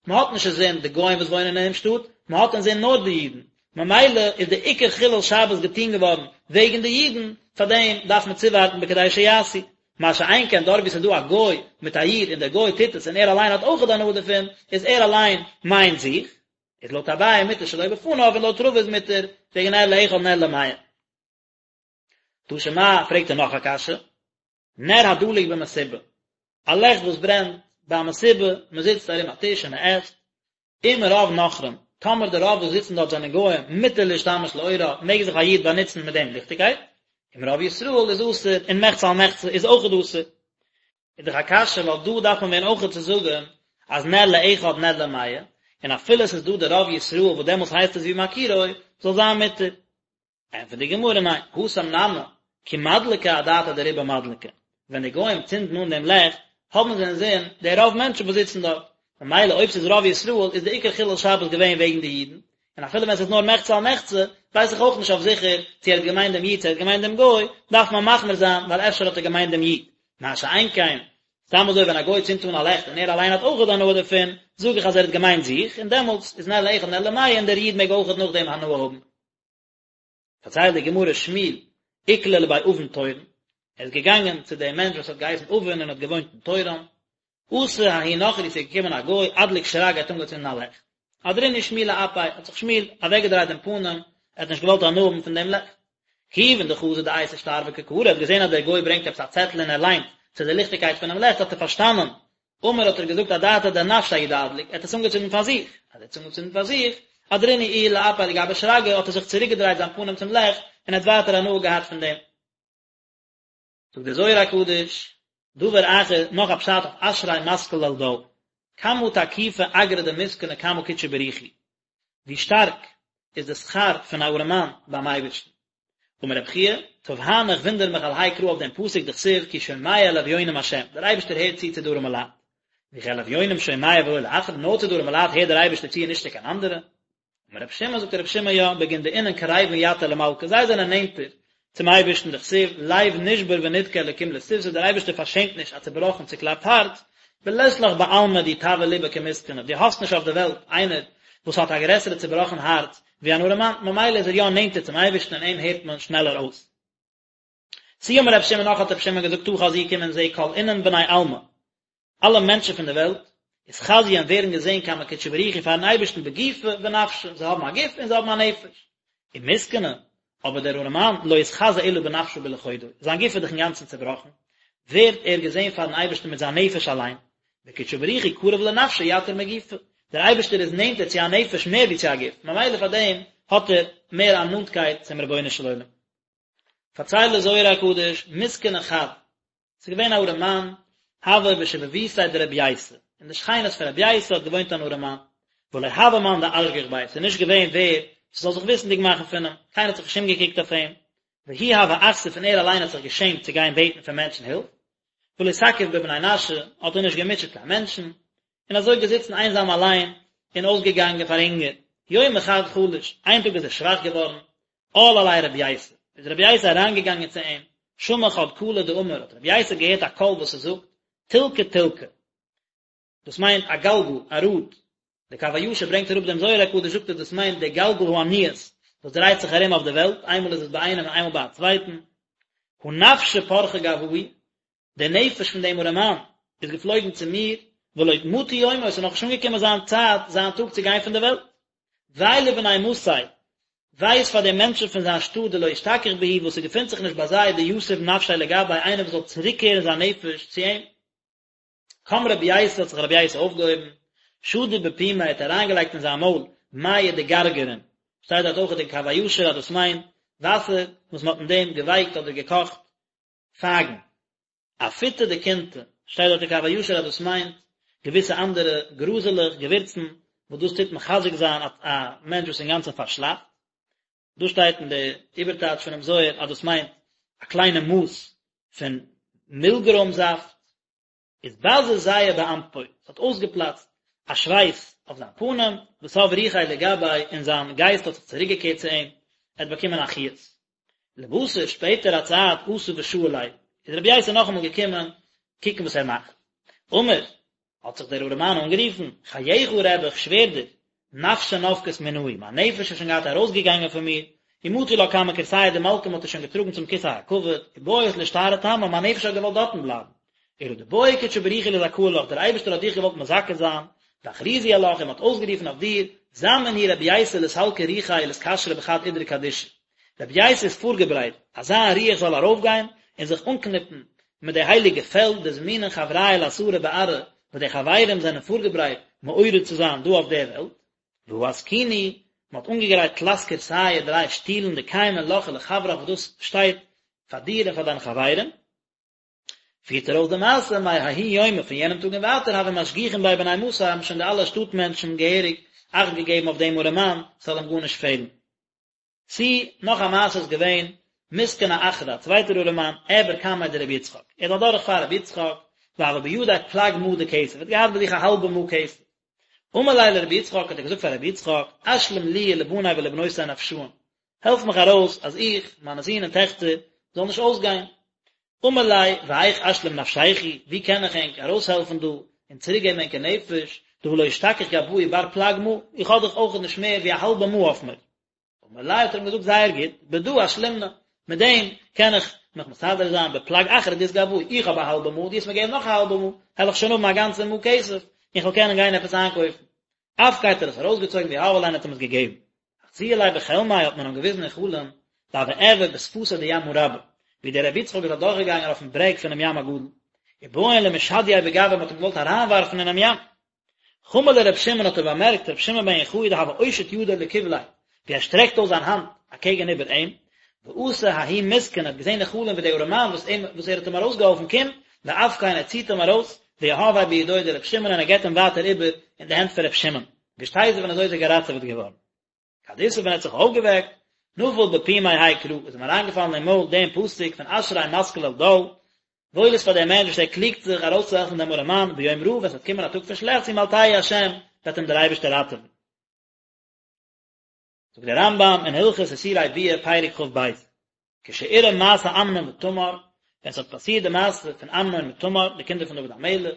מען האט נישט אינזין די גוים וואס וואוינען אינעם שטאט, מען האט אינזין נאר די אידן, ממילא איז די עיקר חילול שבת געטון געווארן וועגן די אידן, פארדעם דארף מען צואווארטן בכדי שיעשו, מה שאין כן דארט וואו ס'איז דא א גוי מיט א איד און דער גוי טוט עס און ער אליין האט אויכעט הנאה דערפון, איז ער אליין מיינט זיך, איז לויט אביי מותר שלא בפניו און לויט רבא איז מותר וועגן נר לאחד נר למאה. תא שמע, פרעגט ער נאך א קשיא, נר הדלוק במסיבה, א לעכט וואס ברענט ביי א מסיבה, מען זיצט ארום א טיש און מען עסט, אם רוב נכרים, טאמער די רוב וואס זיצן דארט זענען גוים, מותר להשתמש לאורה, מעג זיך א איד באנוצן מיט דעם ליכטיגקייט, אם רוב ישראל איז אסור, און מחצה על מחצה איז אויכעט אסור. איז דאך א קשיא ווייל דא דארף מען ווען אויכעט צו זאגן אז נר לאחד נר למאה, און אפילו עס איז דא די רוב ישראל וואס דעמאלטס הייסט עס ווי מכירו, זאל זיין מותר. ענטפערט די גמרא ניין, התם נמי, כי מדלקי אדעתא דרובא מדלקי, ווען די גוים צינדן אן דעם לעכט, האבן זיי אינזין די רוב מענטשן וואס זיצן דארט, ממילא אויב ס'איז רוב ישראל איז די עיקר חילול שבת געווען וועגן די אידן, און אפילו ווען ס'איז נאר מחצה על מחצה, ווייס איך אויך נישט אויף זיכער צו ער האט געמיינט דעם איד צו ער האט געמיינט דעם גוי, דארף מען מחמיר זיין ווייל אפשר האט ער געמיינט דעם איד. מה שאין כן, סתם אזוי ווען א גוי צינדט אן א לעכט און ער אליין האט אויכעט הנאה דערפון, זאג איך אז ער האט געמיינט זיך, און דעמאלטס איז נר לאחד נר למאה און דער איד מעג אויכעט נאכדעם הנאה האבן. פארציילט די גמרא שמואל איקלע לבי אבין טורון, ער איז געגאנגען צו דעם מענטש וואס האט געהייסן אבין און האט געוואוינט אין טורון, אתא ההוא נוכרי ס'איז געקומען א גוי אדליק שרגא האט אנגעצינדן א לעכט, אהדרינהו שמואל לאפיה האט זיך שמואל אוועקגעדרייט דעם פנים, ער האט נישט געוואלט הנאה האבן פון דעם לעכט. כיוון דחזא דאייתי שטר וקא קרי האט געזען אז דער גוי ברענגט עפעס א צעטל און ער ליינט צו די ליכטיגקייט פונעם לעכט האט ער פארשטאנען אמר האט ער געזאגט אדעתא דנפשיה הוא דאדליק, ער האט עס אנגעצינדן פאר זיך, אז ער האט עס אנגעצינדן פאר זיך, אהדרינהו איהו לאפיה לגבי שרגא, האט ער זיך צוריק געדרייט זיין פנים צום לעכט, און האט ווייטער הנאה געהאט פון דעם. זאגט דער זוהר הקדוש, דבר אחר, נאך א פשט אויף אשרי משכיל אל דל, כמה תקיפא אגרא דמסכנא קמי קודשא בריך הוא, ווי שטארק איז די שכר פון א ארעמאן ביים אייבערשטן. אמר רבי חייא, תווהנא איך וואונדער מיך על האי קרא אויף דעם פסוק דכתיב כי שומע לאביונים השם, דער אייבערשטער הערט צו צו די ארעמע לייט. וכי אל אביונים שומע ולא לאחרים, נאר צו די ארעמע לייט הערט דער אייבערשטער צו און נישט צו קיין אנדערע? אמר רבי שמעון, זאגט רבי שמעון יא, בגין דאינון קריבין יתיר למלכא, זיי זענען נענטער צום אייבערשטן דכתיב לב נשבר ונדכה אלקים לא תבזה, דער אייבערשטער פארשעמט נישט א צעבראכן צוקלאפט הארץ, ולית לך בעלמא די טבעא ליבא כמסכנא, דו האסט נישט אויף די וועלט איינער וואס האט א גרעסערע צובראכן הארץ ווי אן ארעמאן, ממילא איז ער יא נענטער צום אייבערשטן און אים הערט מען שנעלער אויס. תו אמר רבי שמעון נאך האט רבי שמעון געזאגט תא חזי קום און זע כל אינון בני עלמא, אלע מענטשן פון די וועלט, אתחזיין ווערן געזען קמי קודשא בריך הוא פארן אייבערשטן בגופא ונפשא, זיי האבן א גוף און זיי האבן א נפש. ומסכנא, אבער דער ארעמאן, לא אתחזי אלא בנפשא בלחודוי, זיין גוף איז דאך אינגאנצן צעבראכן, ווערט ער געזען פארן אייבערשטן מיט זיין נפש אליין, וקודשא בריך הוא קריב לנפשא יתיר מגופא, דער אייבערשטער איז נענטער צו א נפש מער ווי צו א גוף, ממילא פאר דעם האט ער מער א נאנטקייט צום רבונו של עולם. פארציילט דער זוהר הקדוש, מסכנא חד, ס'איז געווען א ארעמאן, הוה בשיבבותיה דרבי ייסא, אין די שכינות פון רבי ייסא האט געוואוינט אן ארעמאן. ולא הוה מאן דאשגח ביה, ס'איז נישט געווען ווער ס'זאל זיך וויסנדיג מאכן פון אים, קיינער האט זיך נישט אומגעקוקט אויף אים, והוא הוה אכסיף און ער אליין האט זיך געשעמט צו גיין בעטן פון מענטשן הילף, ולא תקיף בבני נשא, האט ער נישט געמוטשעט קיין מענטשן, און אזוי געזיצן איינזאם אליין און אויסגעגאנגען פאר הונגער. יומא חד חלש, איין טאג איז ער שוואך געווארן, על עליה רבי ייסא, איז רבי ייסא אריינגעגאנגען צו אים, שמע חד קלא דאמר, האט רבי ייסא געהערט א קול וואס עס זאגט, תלקא תלקא, דאס מיינט א גלגל, א ראד, דער קב הישר ברענגט אראפ דעם זוהר הקדוש זאגט ער דאס מיינט דער גלגל העניות וואס דרייט זיך ארום אויף די וועלט, איינמאל איז עס ביי איינעם און איינמאל ביי א צווייטן, הא נפשא פרחא גואי, דער נפש פון דעם ארעמאן איז געפלויגן צו מיר, ולא מטא יומו, עס איז נאכנישט אנגעקומען זיין צייט, זיין טאג צו גיין פון דער וועלט. וויי לבני מתיה, וויי איז פאר די מענטשן פון זיין שטאט דלא אשתכח בהו וואס ס'געפינט זיך נישט ביי זיי דיתיב נפשיה לגביה איינער וואס זאל צוריקקערן זיין נפש צו אים. קם רבי ייסא האט זיך רבי ייסא אויפגעהויבן, שדי בפומיה האט אריינגעלייגט אין זיין מויל מיא דגרגרין, שטייט דארט אויך אין קב הישר אז דאס מיינט וואסער וואס מען האט אין דעם געווייקט אדער געקאכט פייגן. אפוטא דקינתא, שטייט דארט אין קב הישר אז דאס מיינט געוויסע אנדערע גראזעלעך, געווירצן, וואס דאס טוט מחזק זיין א מענטש וואס איז אינגאנצן פארשלאפט. דא שטייט אין די איבערטייטש פונעם זוהר אז דאס מיינט א קליינע מאס פון מילגרוים זאפט. איז בזע זיעא באנפוי, עס האט אויסגעפלאצט א שווייס אויף זיין פנים, ותב רוחיה לגביה, און זיין גייסט האט זיך צוריקגעקערט צו אים, ער האט באקומען א חיות. לבתר, שפעטער א צייט, אתא ושאיל ליה, איז רבי ייסא נאכאמאל געקומען קוקן וואס ער מאכט. אמר, האט זיך דער ארעמאן אנגערופן, חייך רבי, איך שווער דיר, נפשא נפקת מינאי, מיין נפש איז שוין געהאט ארויסגעגאנגען פון מיר, ומטו לה קמי כורסייא דמלכא מ'האט איר שוין געטראגן צום כסא הכבוד, ובעית לאשתארא תמה, מיין נפש האט געוואלט דארטן בלייבן. אלא דבעי קודשא בריך הוא לזכאה לך, דער אייבערשטער האט דיך געוואלט מזכה זיין, ואכריזו עלך, און מ'האט אויסגערופן אויף דיר, זמין הוא רבי ייסא לסלקא רוחיה ולאתקשרא בחד אידרא קדישא. רבי ייסא איז פארגעברייט אז זיין רוח זאל ארויפגיין און זיך אנקניפן מיט די הייליגע פעלד דזמינין חברייא לאתערא בארעא וואס די חברים זענען פארגעברייט מעורר צו זיין דא אויף דער וועלט, והא אתקינו, מען האט אנגעגרייט תלת כורסייא דריי שטולן דקיימין לך ולחברך וואס דאס שטייט פאר דיר און פאר דיינע חברים. פירט ער אויס די מעשה מההוא יומא פון יענעם טאג און ווייטער הוו משגיחין ביה בני מתיה האבן שוין די אלע שטאט מענטשן געהעריג אכט געגעבן אויף דעם ארעמאן ס'זאל אים גארנישט פעלן. תו, נאך א מעשה איז געווען, מסכנא אחרא, א צווייטער ארעמאן, אעבר קמיה דרבי יצחק, ער איז אדורך פאר רבי יצחק, והוה בידיה פלג מעה דכסף, ער האט געהאט ביי זיך א האלבע מעה כסף. אמר ליה לרבי יצחק, האט ער געזאגט פאר רבי יצחק, אשלים לי ולבני ולבנותי נפשאין, העלף מיך ארויס אז איך, מיינע זין און טעכטער, זאלן נישט אויסגיין. אמר ליה, והיאך אשלים נפשייכו, ווי קען איך ענק ארויסהעלפן דא, און צוריקגעבן ענקער נפש, דהא לא אשתכח גואי בר פלג מעה, איך האב דאך אויכעט נישט מער ווי א האלבע מעה אויף מיר. אמר ליה האט ער אים געזאגט זייער גוט, בדא אשלימנא, מיט דעם קען איך מיך מסדר זיין בפלג אחרא דאית גואי, איך האב א האלבע מעה, דו וועסט מיר געבן נאך א האלבע מעה, העל איך שוין האבן א גאנצע מעה כסף, און איך וועל קענען גיין עפעס איינקויפן. אפקיה האט ער עס ארויסגעצויגן ויהביה ליה און האט אים עס געגעבן. אחזוה ליה בחלמיה האט מען אים געוויזן אין חלום, דהוה אעבר בשפתא דימא רבא, ווי דער רבי יצחק איז אדורכגעגאנגען אויפן ברעג פונעם ים הגדול, ובעאן למשדייה בגויה מען האט אים געוואלט אריינווארפן אינעם ים. חמא לר' שמעון האט ער באמערקט ר' שמעון בן יוחאי דהוה אושיט ידיה לקבליה, ווי ער שטרעקט אויס זיין האנט אקעגן איבער אים, ואתא ההוא מסכן האט געזען אין חלום ווי דער ארעמאן וואס אים וואס ער האט אים ארויסגעהאלפן קומט, ואפקיה און ער ציט אים ארויס, ויהביה בידוי דר' שמעון און ער געבט אים ווייטער איבער אין די הענט פון ר' שמעון. ואשתזיב און אזוי איז ער געראטעוועט געווארן. כד אתער ווען ער האט זיך אויפגעוועקט, נפל בפומיה האי קרא, איז אים אריינגעפאלן אין מויל דעם פסוק פון אשרי משכיל אל דל, וואויל איז פאר דעם מענטש וואס ער קליגט זיך ארויסצוהעלפן דעם ארעמאן ביום רעה, ווען ס'וועט קומען א טאג פון שלעכטס ימלטהו השם, וועט אים דער אייבערשטער ראטעווען. זאגט דער רמב"ם אין הלכות איסורי ביאה פרק כ"ב, כשאירע מעשה אמנון ותמר, ווען ס'האט פאסירט די מעשה פון אמנון מיט תמר, די קינדער פון דוד המלך,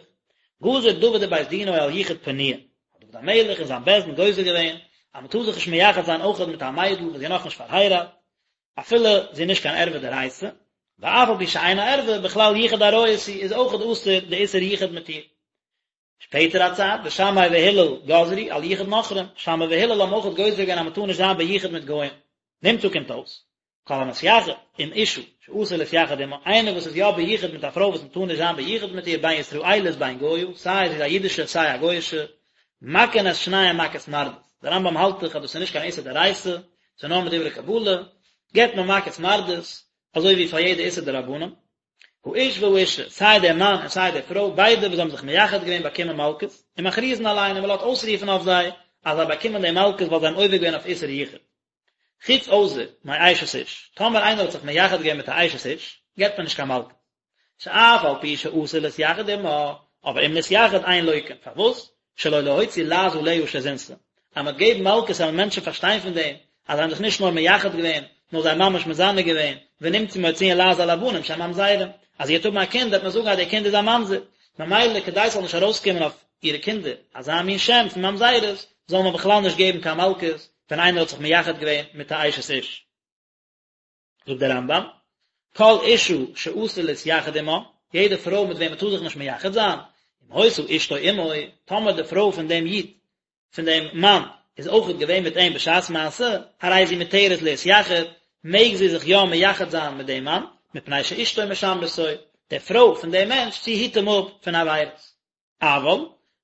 גזר דוד ובית דינו על יחוד פנויה, האט דוד המלך און זיין בית דין גוזר געווען אז מ'טאר זיך נישט מייחד זיין אויכעט מיט א מיידל וואס זי איז נאכנישט פארהייראט, אפילו זי איז נישט קיין ערווה דאורייתא, ואף על פי שאינה ערווה, בכלל יחוד עריות היא, איז אויכעט אסור די איסור יחוד מיט איר. שפעטער א צייט, ושמאי והלל גזרו על יחוד נכרים, שמאי והלל האבן אויכעט גוזר געווען אז מען טאר נישט זיין ביחוד מיט גוים. נמצא קומט אויס, כל המתייחד עם אשה שאסור להתייחד עמה, איינער וואס איז יא ביחוד מיט א פרוי וואס מען טאר נישט זיין ביחוד מיט איר בין ישראלית בין גויה, סיי זי איז א אידישע סיי א גוי'אישע, מכין את שניהם מכת מרדות. דער רמב"ם האלט דאך אז דאס איז נישט קיין איסור דאורייתא, ס'איז נאר מדברי קבלה, געבט מען מכת מרדות, אזוי ווי פאר יעדע איסור דרבנן. האיש והאשה, סיי דער מאן און סיי די פרוי, ביידע וואס האבן זיך מייחד געווען באקומען מלקות, ומכריזין עליהן און מען לאזט אויסרופן אויף זיי. אז זיי באקומען די מלקות ווייל זיי האבן עובר געווען אויף איסור יחוד. חוץ אויסער מאשת איש, טאמער איינער האט זיך מייחד געווען מיט א אשת איש, געבט מען נישט קיין מלקות. שאף על פי שאסור להתייחד עמה, אבער אם נתייחד אין לוקין, פארוואס? שלא להוציא לעז עליה שזינתה, אז מ'וועט געבן מלקות וועלן מענטשן פארשטיין פון דעם אז זיי האבן זיך נישט נאר מייחד געווען, נאר זיי האבן ממש מזנה געווען, ונמצאו מוציאין לעז על הבנים שהם ממזרים, אז זי וועט האבן א קינד וועט מען זאגן אז דער קינד איז א ממזר, ממילא כדי ס'זאל נישט ארויסקומען אויף אירע קינדער אזא מין שם פון ממזרות, זאל מען בכלל נישט געבן קיין מלקות ווען איינער האט זיך מייחד געווען מיט א אשת איש. זאגט דער רמב"ם, כל אשה שאסור להתייחד עמה, יעדע פרוי מיט וועם מען טאר זיך נישט מייחד זיין, אם היתה אשתו עמו, טאמער די פרוי פון דעם איד, פון דעם מאן, איז אויכעט געווען מיט אים בשעת מעשה, הרי זו מותרת להתייחד, מעג זי זיך יא מייחד זיין מיט דעם מאן, מפני שאשתו משמרתו, די פרוי פון דעם מענטש, זי היט אים אפ פון עבירות. אבל,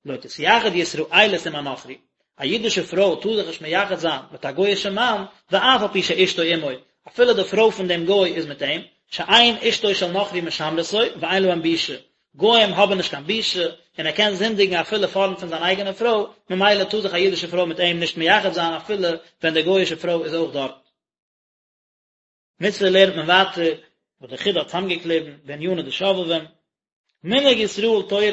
לא תתייחד ישראלית עם הנכרי, א אידישע פרוי טאר זיך נישט מייחד זיין מיט א גוי'אישע מאן, ואף על פי שאשתו עמו, אפילו די פרוי פון דעם גוי איז מיט אים, שאין אשתו של נכרי משמרתו, ואין להם בושה, גוים האבן נישט קיין בושה, און ער קען זינדיגן אפילו פארנט פון זיין אייגענע פרוי, ממילא טאר זיך א אידישע פרוי מיט אים נישט מייחד זיין אפילו ווען די גוי'אישע פרוי איז אויך דארט. מצוה לערנט מען ווייטער וואס דער חיד"א האט צוזאמגעקליבן בעניני דשובבים, מנהג ישראל תורה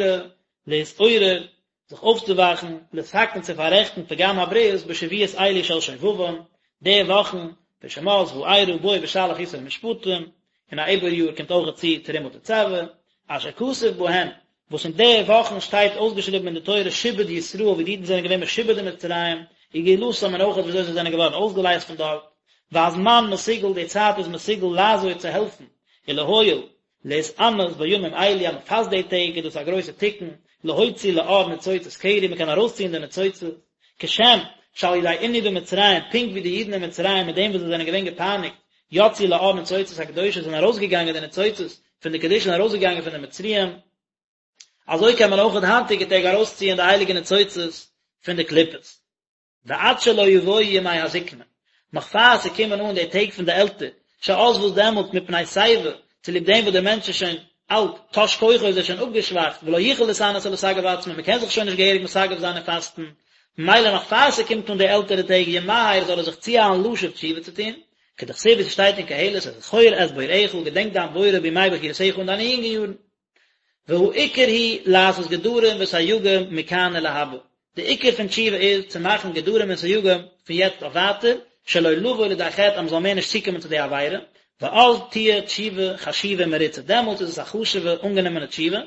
להתעורר, זיך אויפצואוואכן, לתקן צו פאררעכטן פגם הברית בשבועות אלו של שובבים, די וואכן פון שמות וארא בא בשלח יתרו משפטים, און א עיבור יאר קומט אויך צו תרומה תצוה, אשר כתוב בהן, וואס אין די וואכן שטייט אויסגעשריבן אין די תורה שעבוד ישראל ווי די אידן זענען געווען משועבד אין מצרים, וגאולתם און אויך וויאזוי זיי זענען געווארן אויסגעלייזט פון דארט, והזמן מסוגל די צייט איז מסוגל לעזור צו העלפן, ולהועיל, להתענות בימים אלו אז מען פאסט די טעג איז דאס א גרויסע תיקון, להוציא לאור ניצוצות קרי מען קען ארויסציען די ניצוצות, כשם שעל ידי עינוי במצרים פונקט ווי די אידן אין מצרים מיט דעם וואס זיי זענען געווען געפייניגט יצאו לאור ניצוצות הקדושה זענען ארויסגעגאנגען די ניצוצות פון די קדושה און ארויסגעגאנגען פון די מצריים, אזוי קען מען אויך אין היינטיגע טעג ארויסציען די הייליגע ניצוצות פון די קליפות. ועד שלא יבואו ימי הזקנה, נאך פאר ס'קומען אן די טעג פון די עלטער, שאז וואס דעמאלט מפני שיבה, צוליב דעם וואס דער מענטש איז שוין אלט, תש כוחו איז ער שוין אפגעשוואכט, ולא יוכל להתענות ולסגף עצמו, מ'קען זיך שוין נישט געהעריג מסגף זיין און פאסטן, ממילא נאך פאר ס'קומט אן די עלטערע טעג ימהר זאל ער זיך צואיילן לשוב תשובה צו טון, כדכתיב ווי ס'שטייט אין קהלת זכור את בוראך, געדענק דיין בורא בימי בחורותיך אין דיינע יונגע יארן. והעיקר הוא לעשות גדרים וסייגים מכאן ולהבא, די עיקר פון תשובה איז צו מאכן גדרים און סייגים פון יעצט אויף ווייטער, שלא לבוא לידי חטא אז מ'זאל מער נישט צוקומען צו די עבירה, ואז תהיה תשובה חשובה ומרוצה, דעמאלטס איז עס א חשוב'ע אנגענומענע תשובה,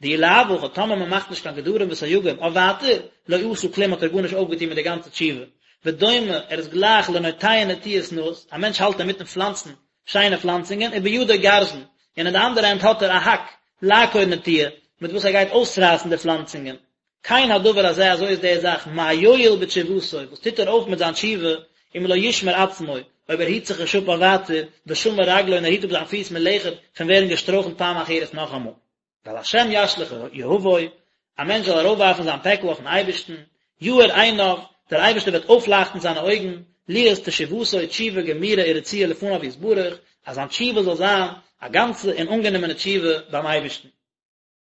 דאי לאו הכי טאמער מ'מאכט נישט קיין גדרים וסייגים אויף ווייטער, לא עשה כלום האט ער גארנישט אויפגעטון מיט די גאנצע תשובה, ודומה, ער איז גלייך לנוטע נטיעות נאות, א מענטש האלט אינמיטן פלאנצן שיינע פלאנצונגען, ובידו גרזן, און אין די אנדערע הענט האט ער א האק, לעקור נטיעה, מיט וואס ער גייט אויסרייסן די פלאנצונגען. כן הדבר הזה, אזוי איז די זאך, מה יועיל בתשובתו, וואס טוט ער אויף מיט זיין תשובה, אם לא ישמור עצמו, אויב ער היט זיך נישט אפ אויף ווייטער, ושמר רגלו און ער היט אפ זיין פיס מלכת, פון ווערן געשטרויכלט פעם אחרת נאכאמאל. ועל השם ישליך יהבו, א מענטש זאל ארויפווארפן זיין פעקל אויפן אייבערשטן, יאר עיניו, דער אייבערשטער וועט אויפלייכטן זיינע אויגן, להיות תשובתו תשובה גמורה ורצויה לפניו יתברך, אז זיין תשובה זאל זיין א גאנצע און אנגענומענע תשובה ביים אייבערשטן.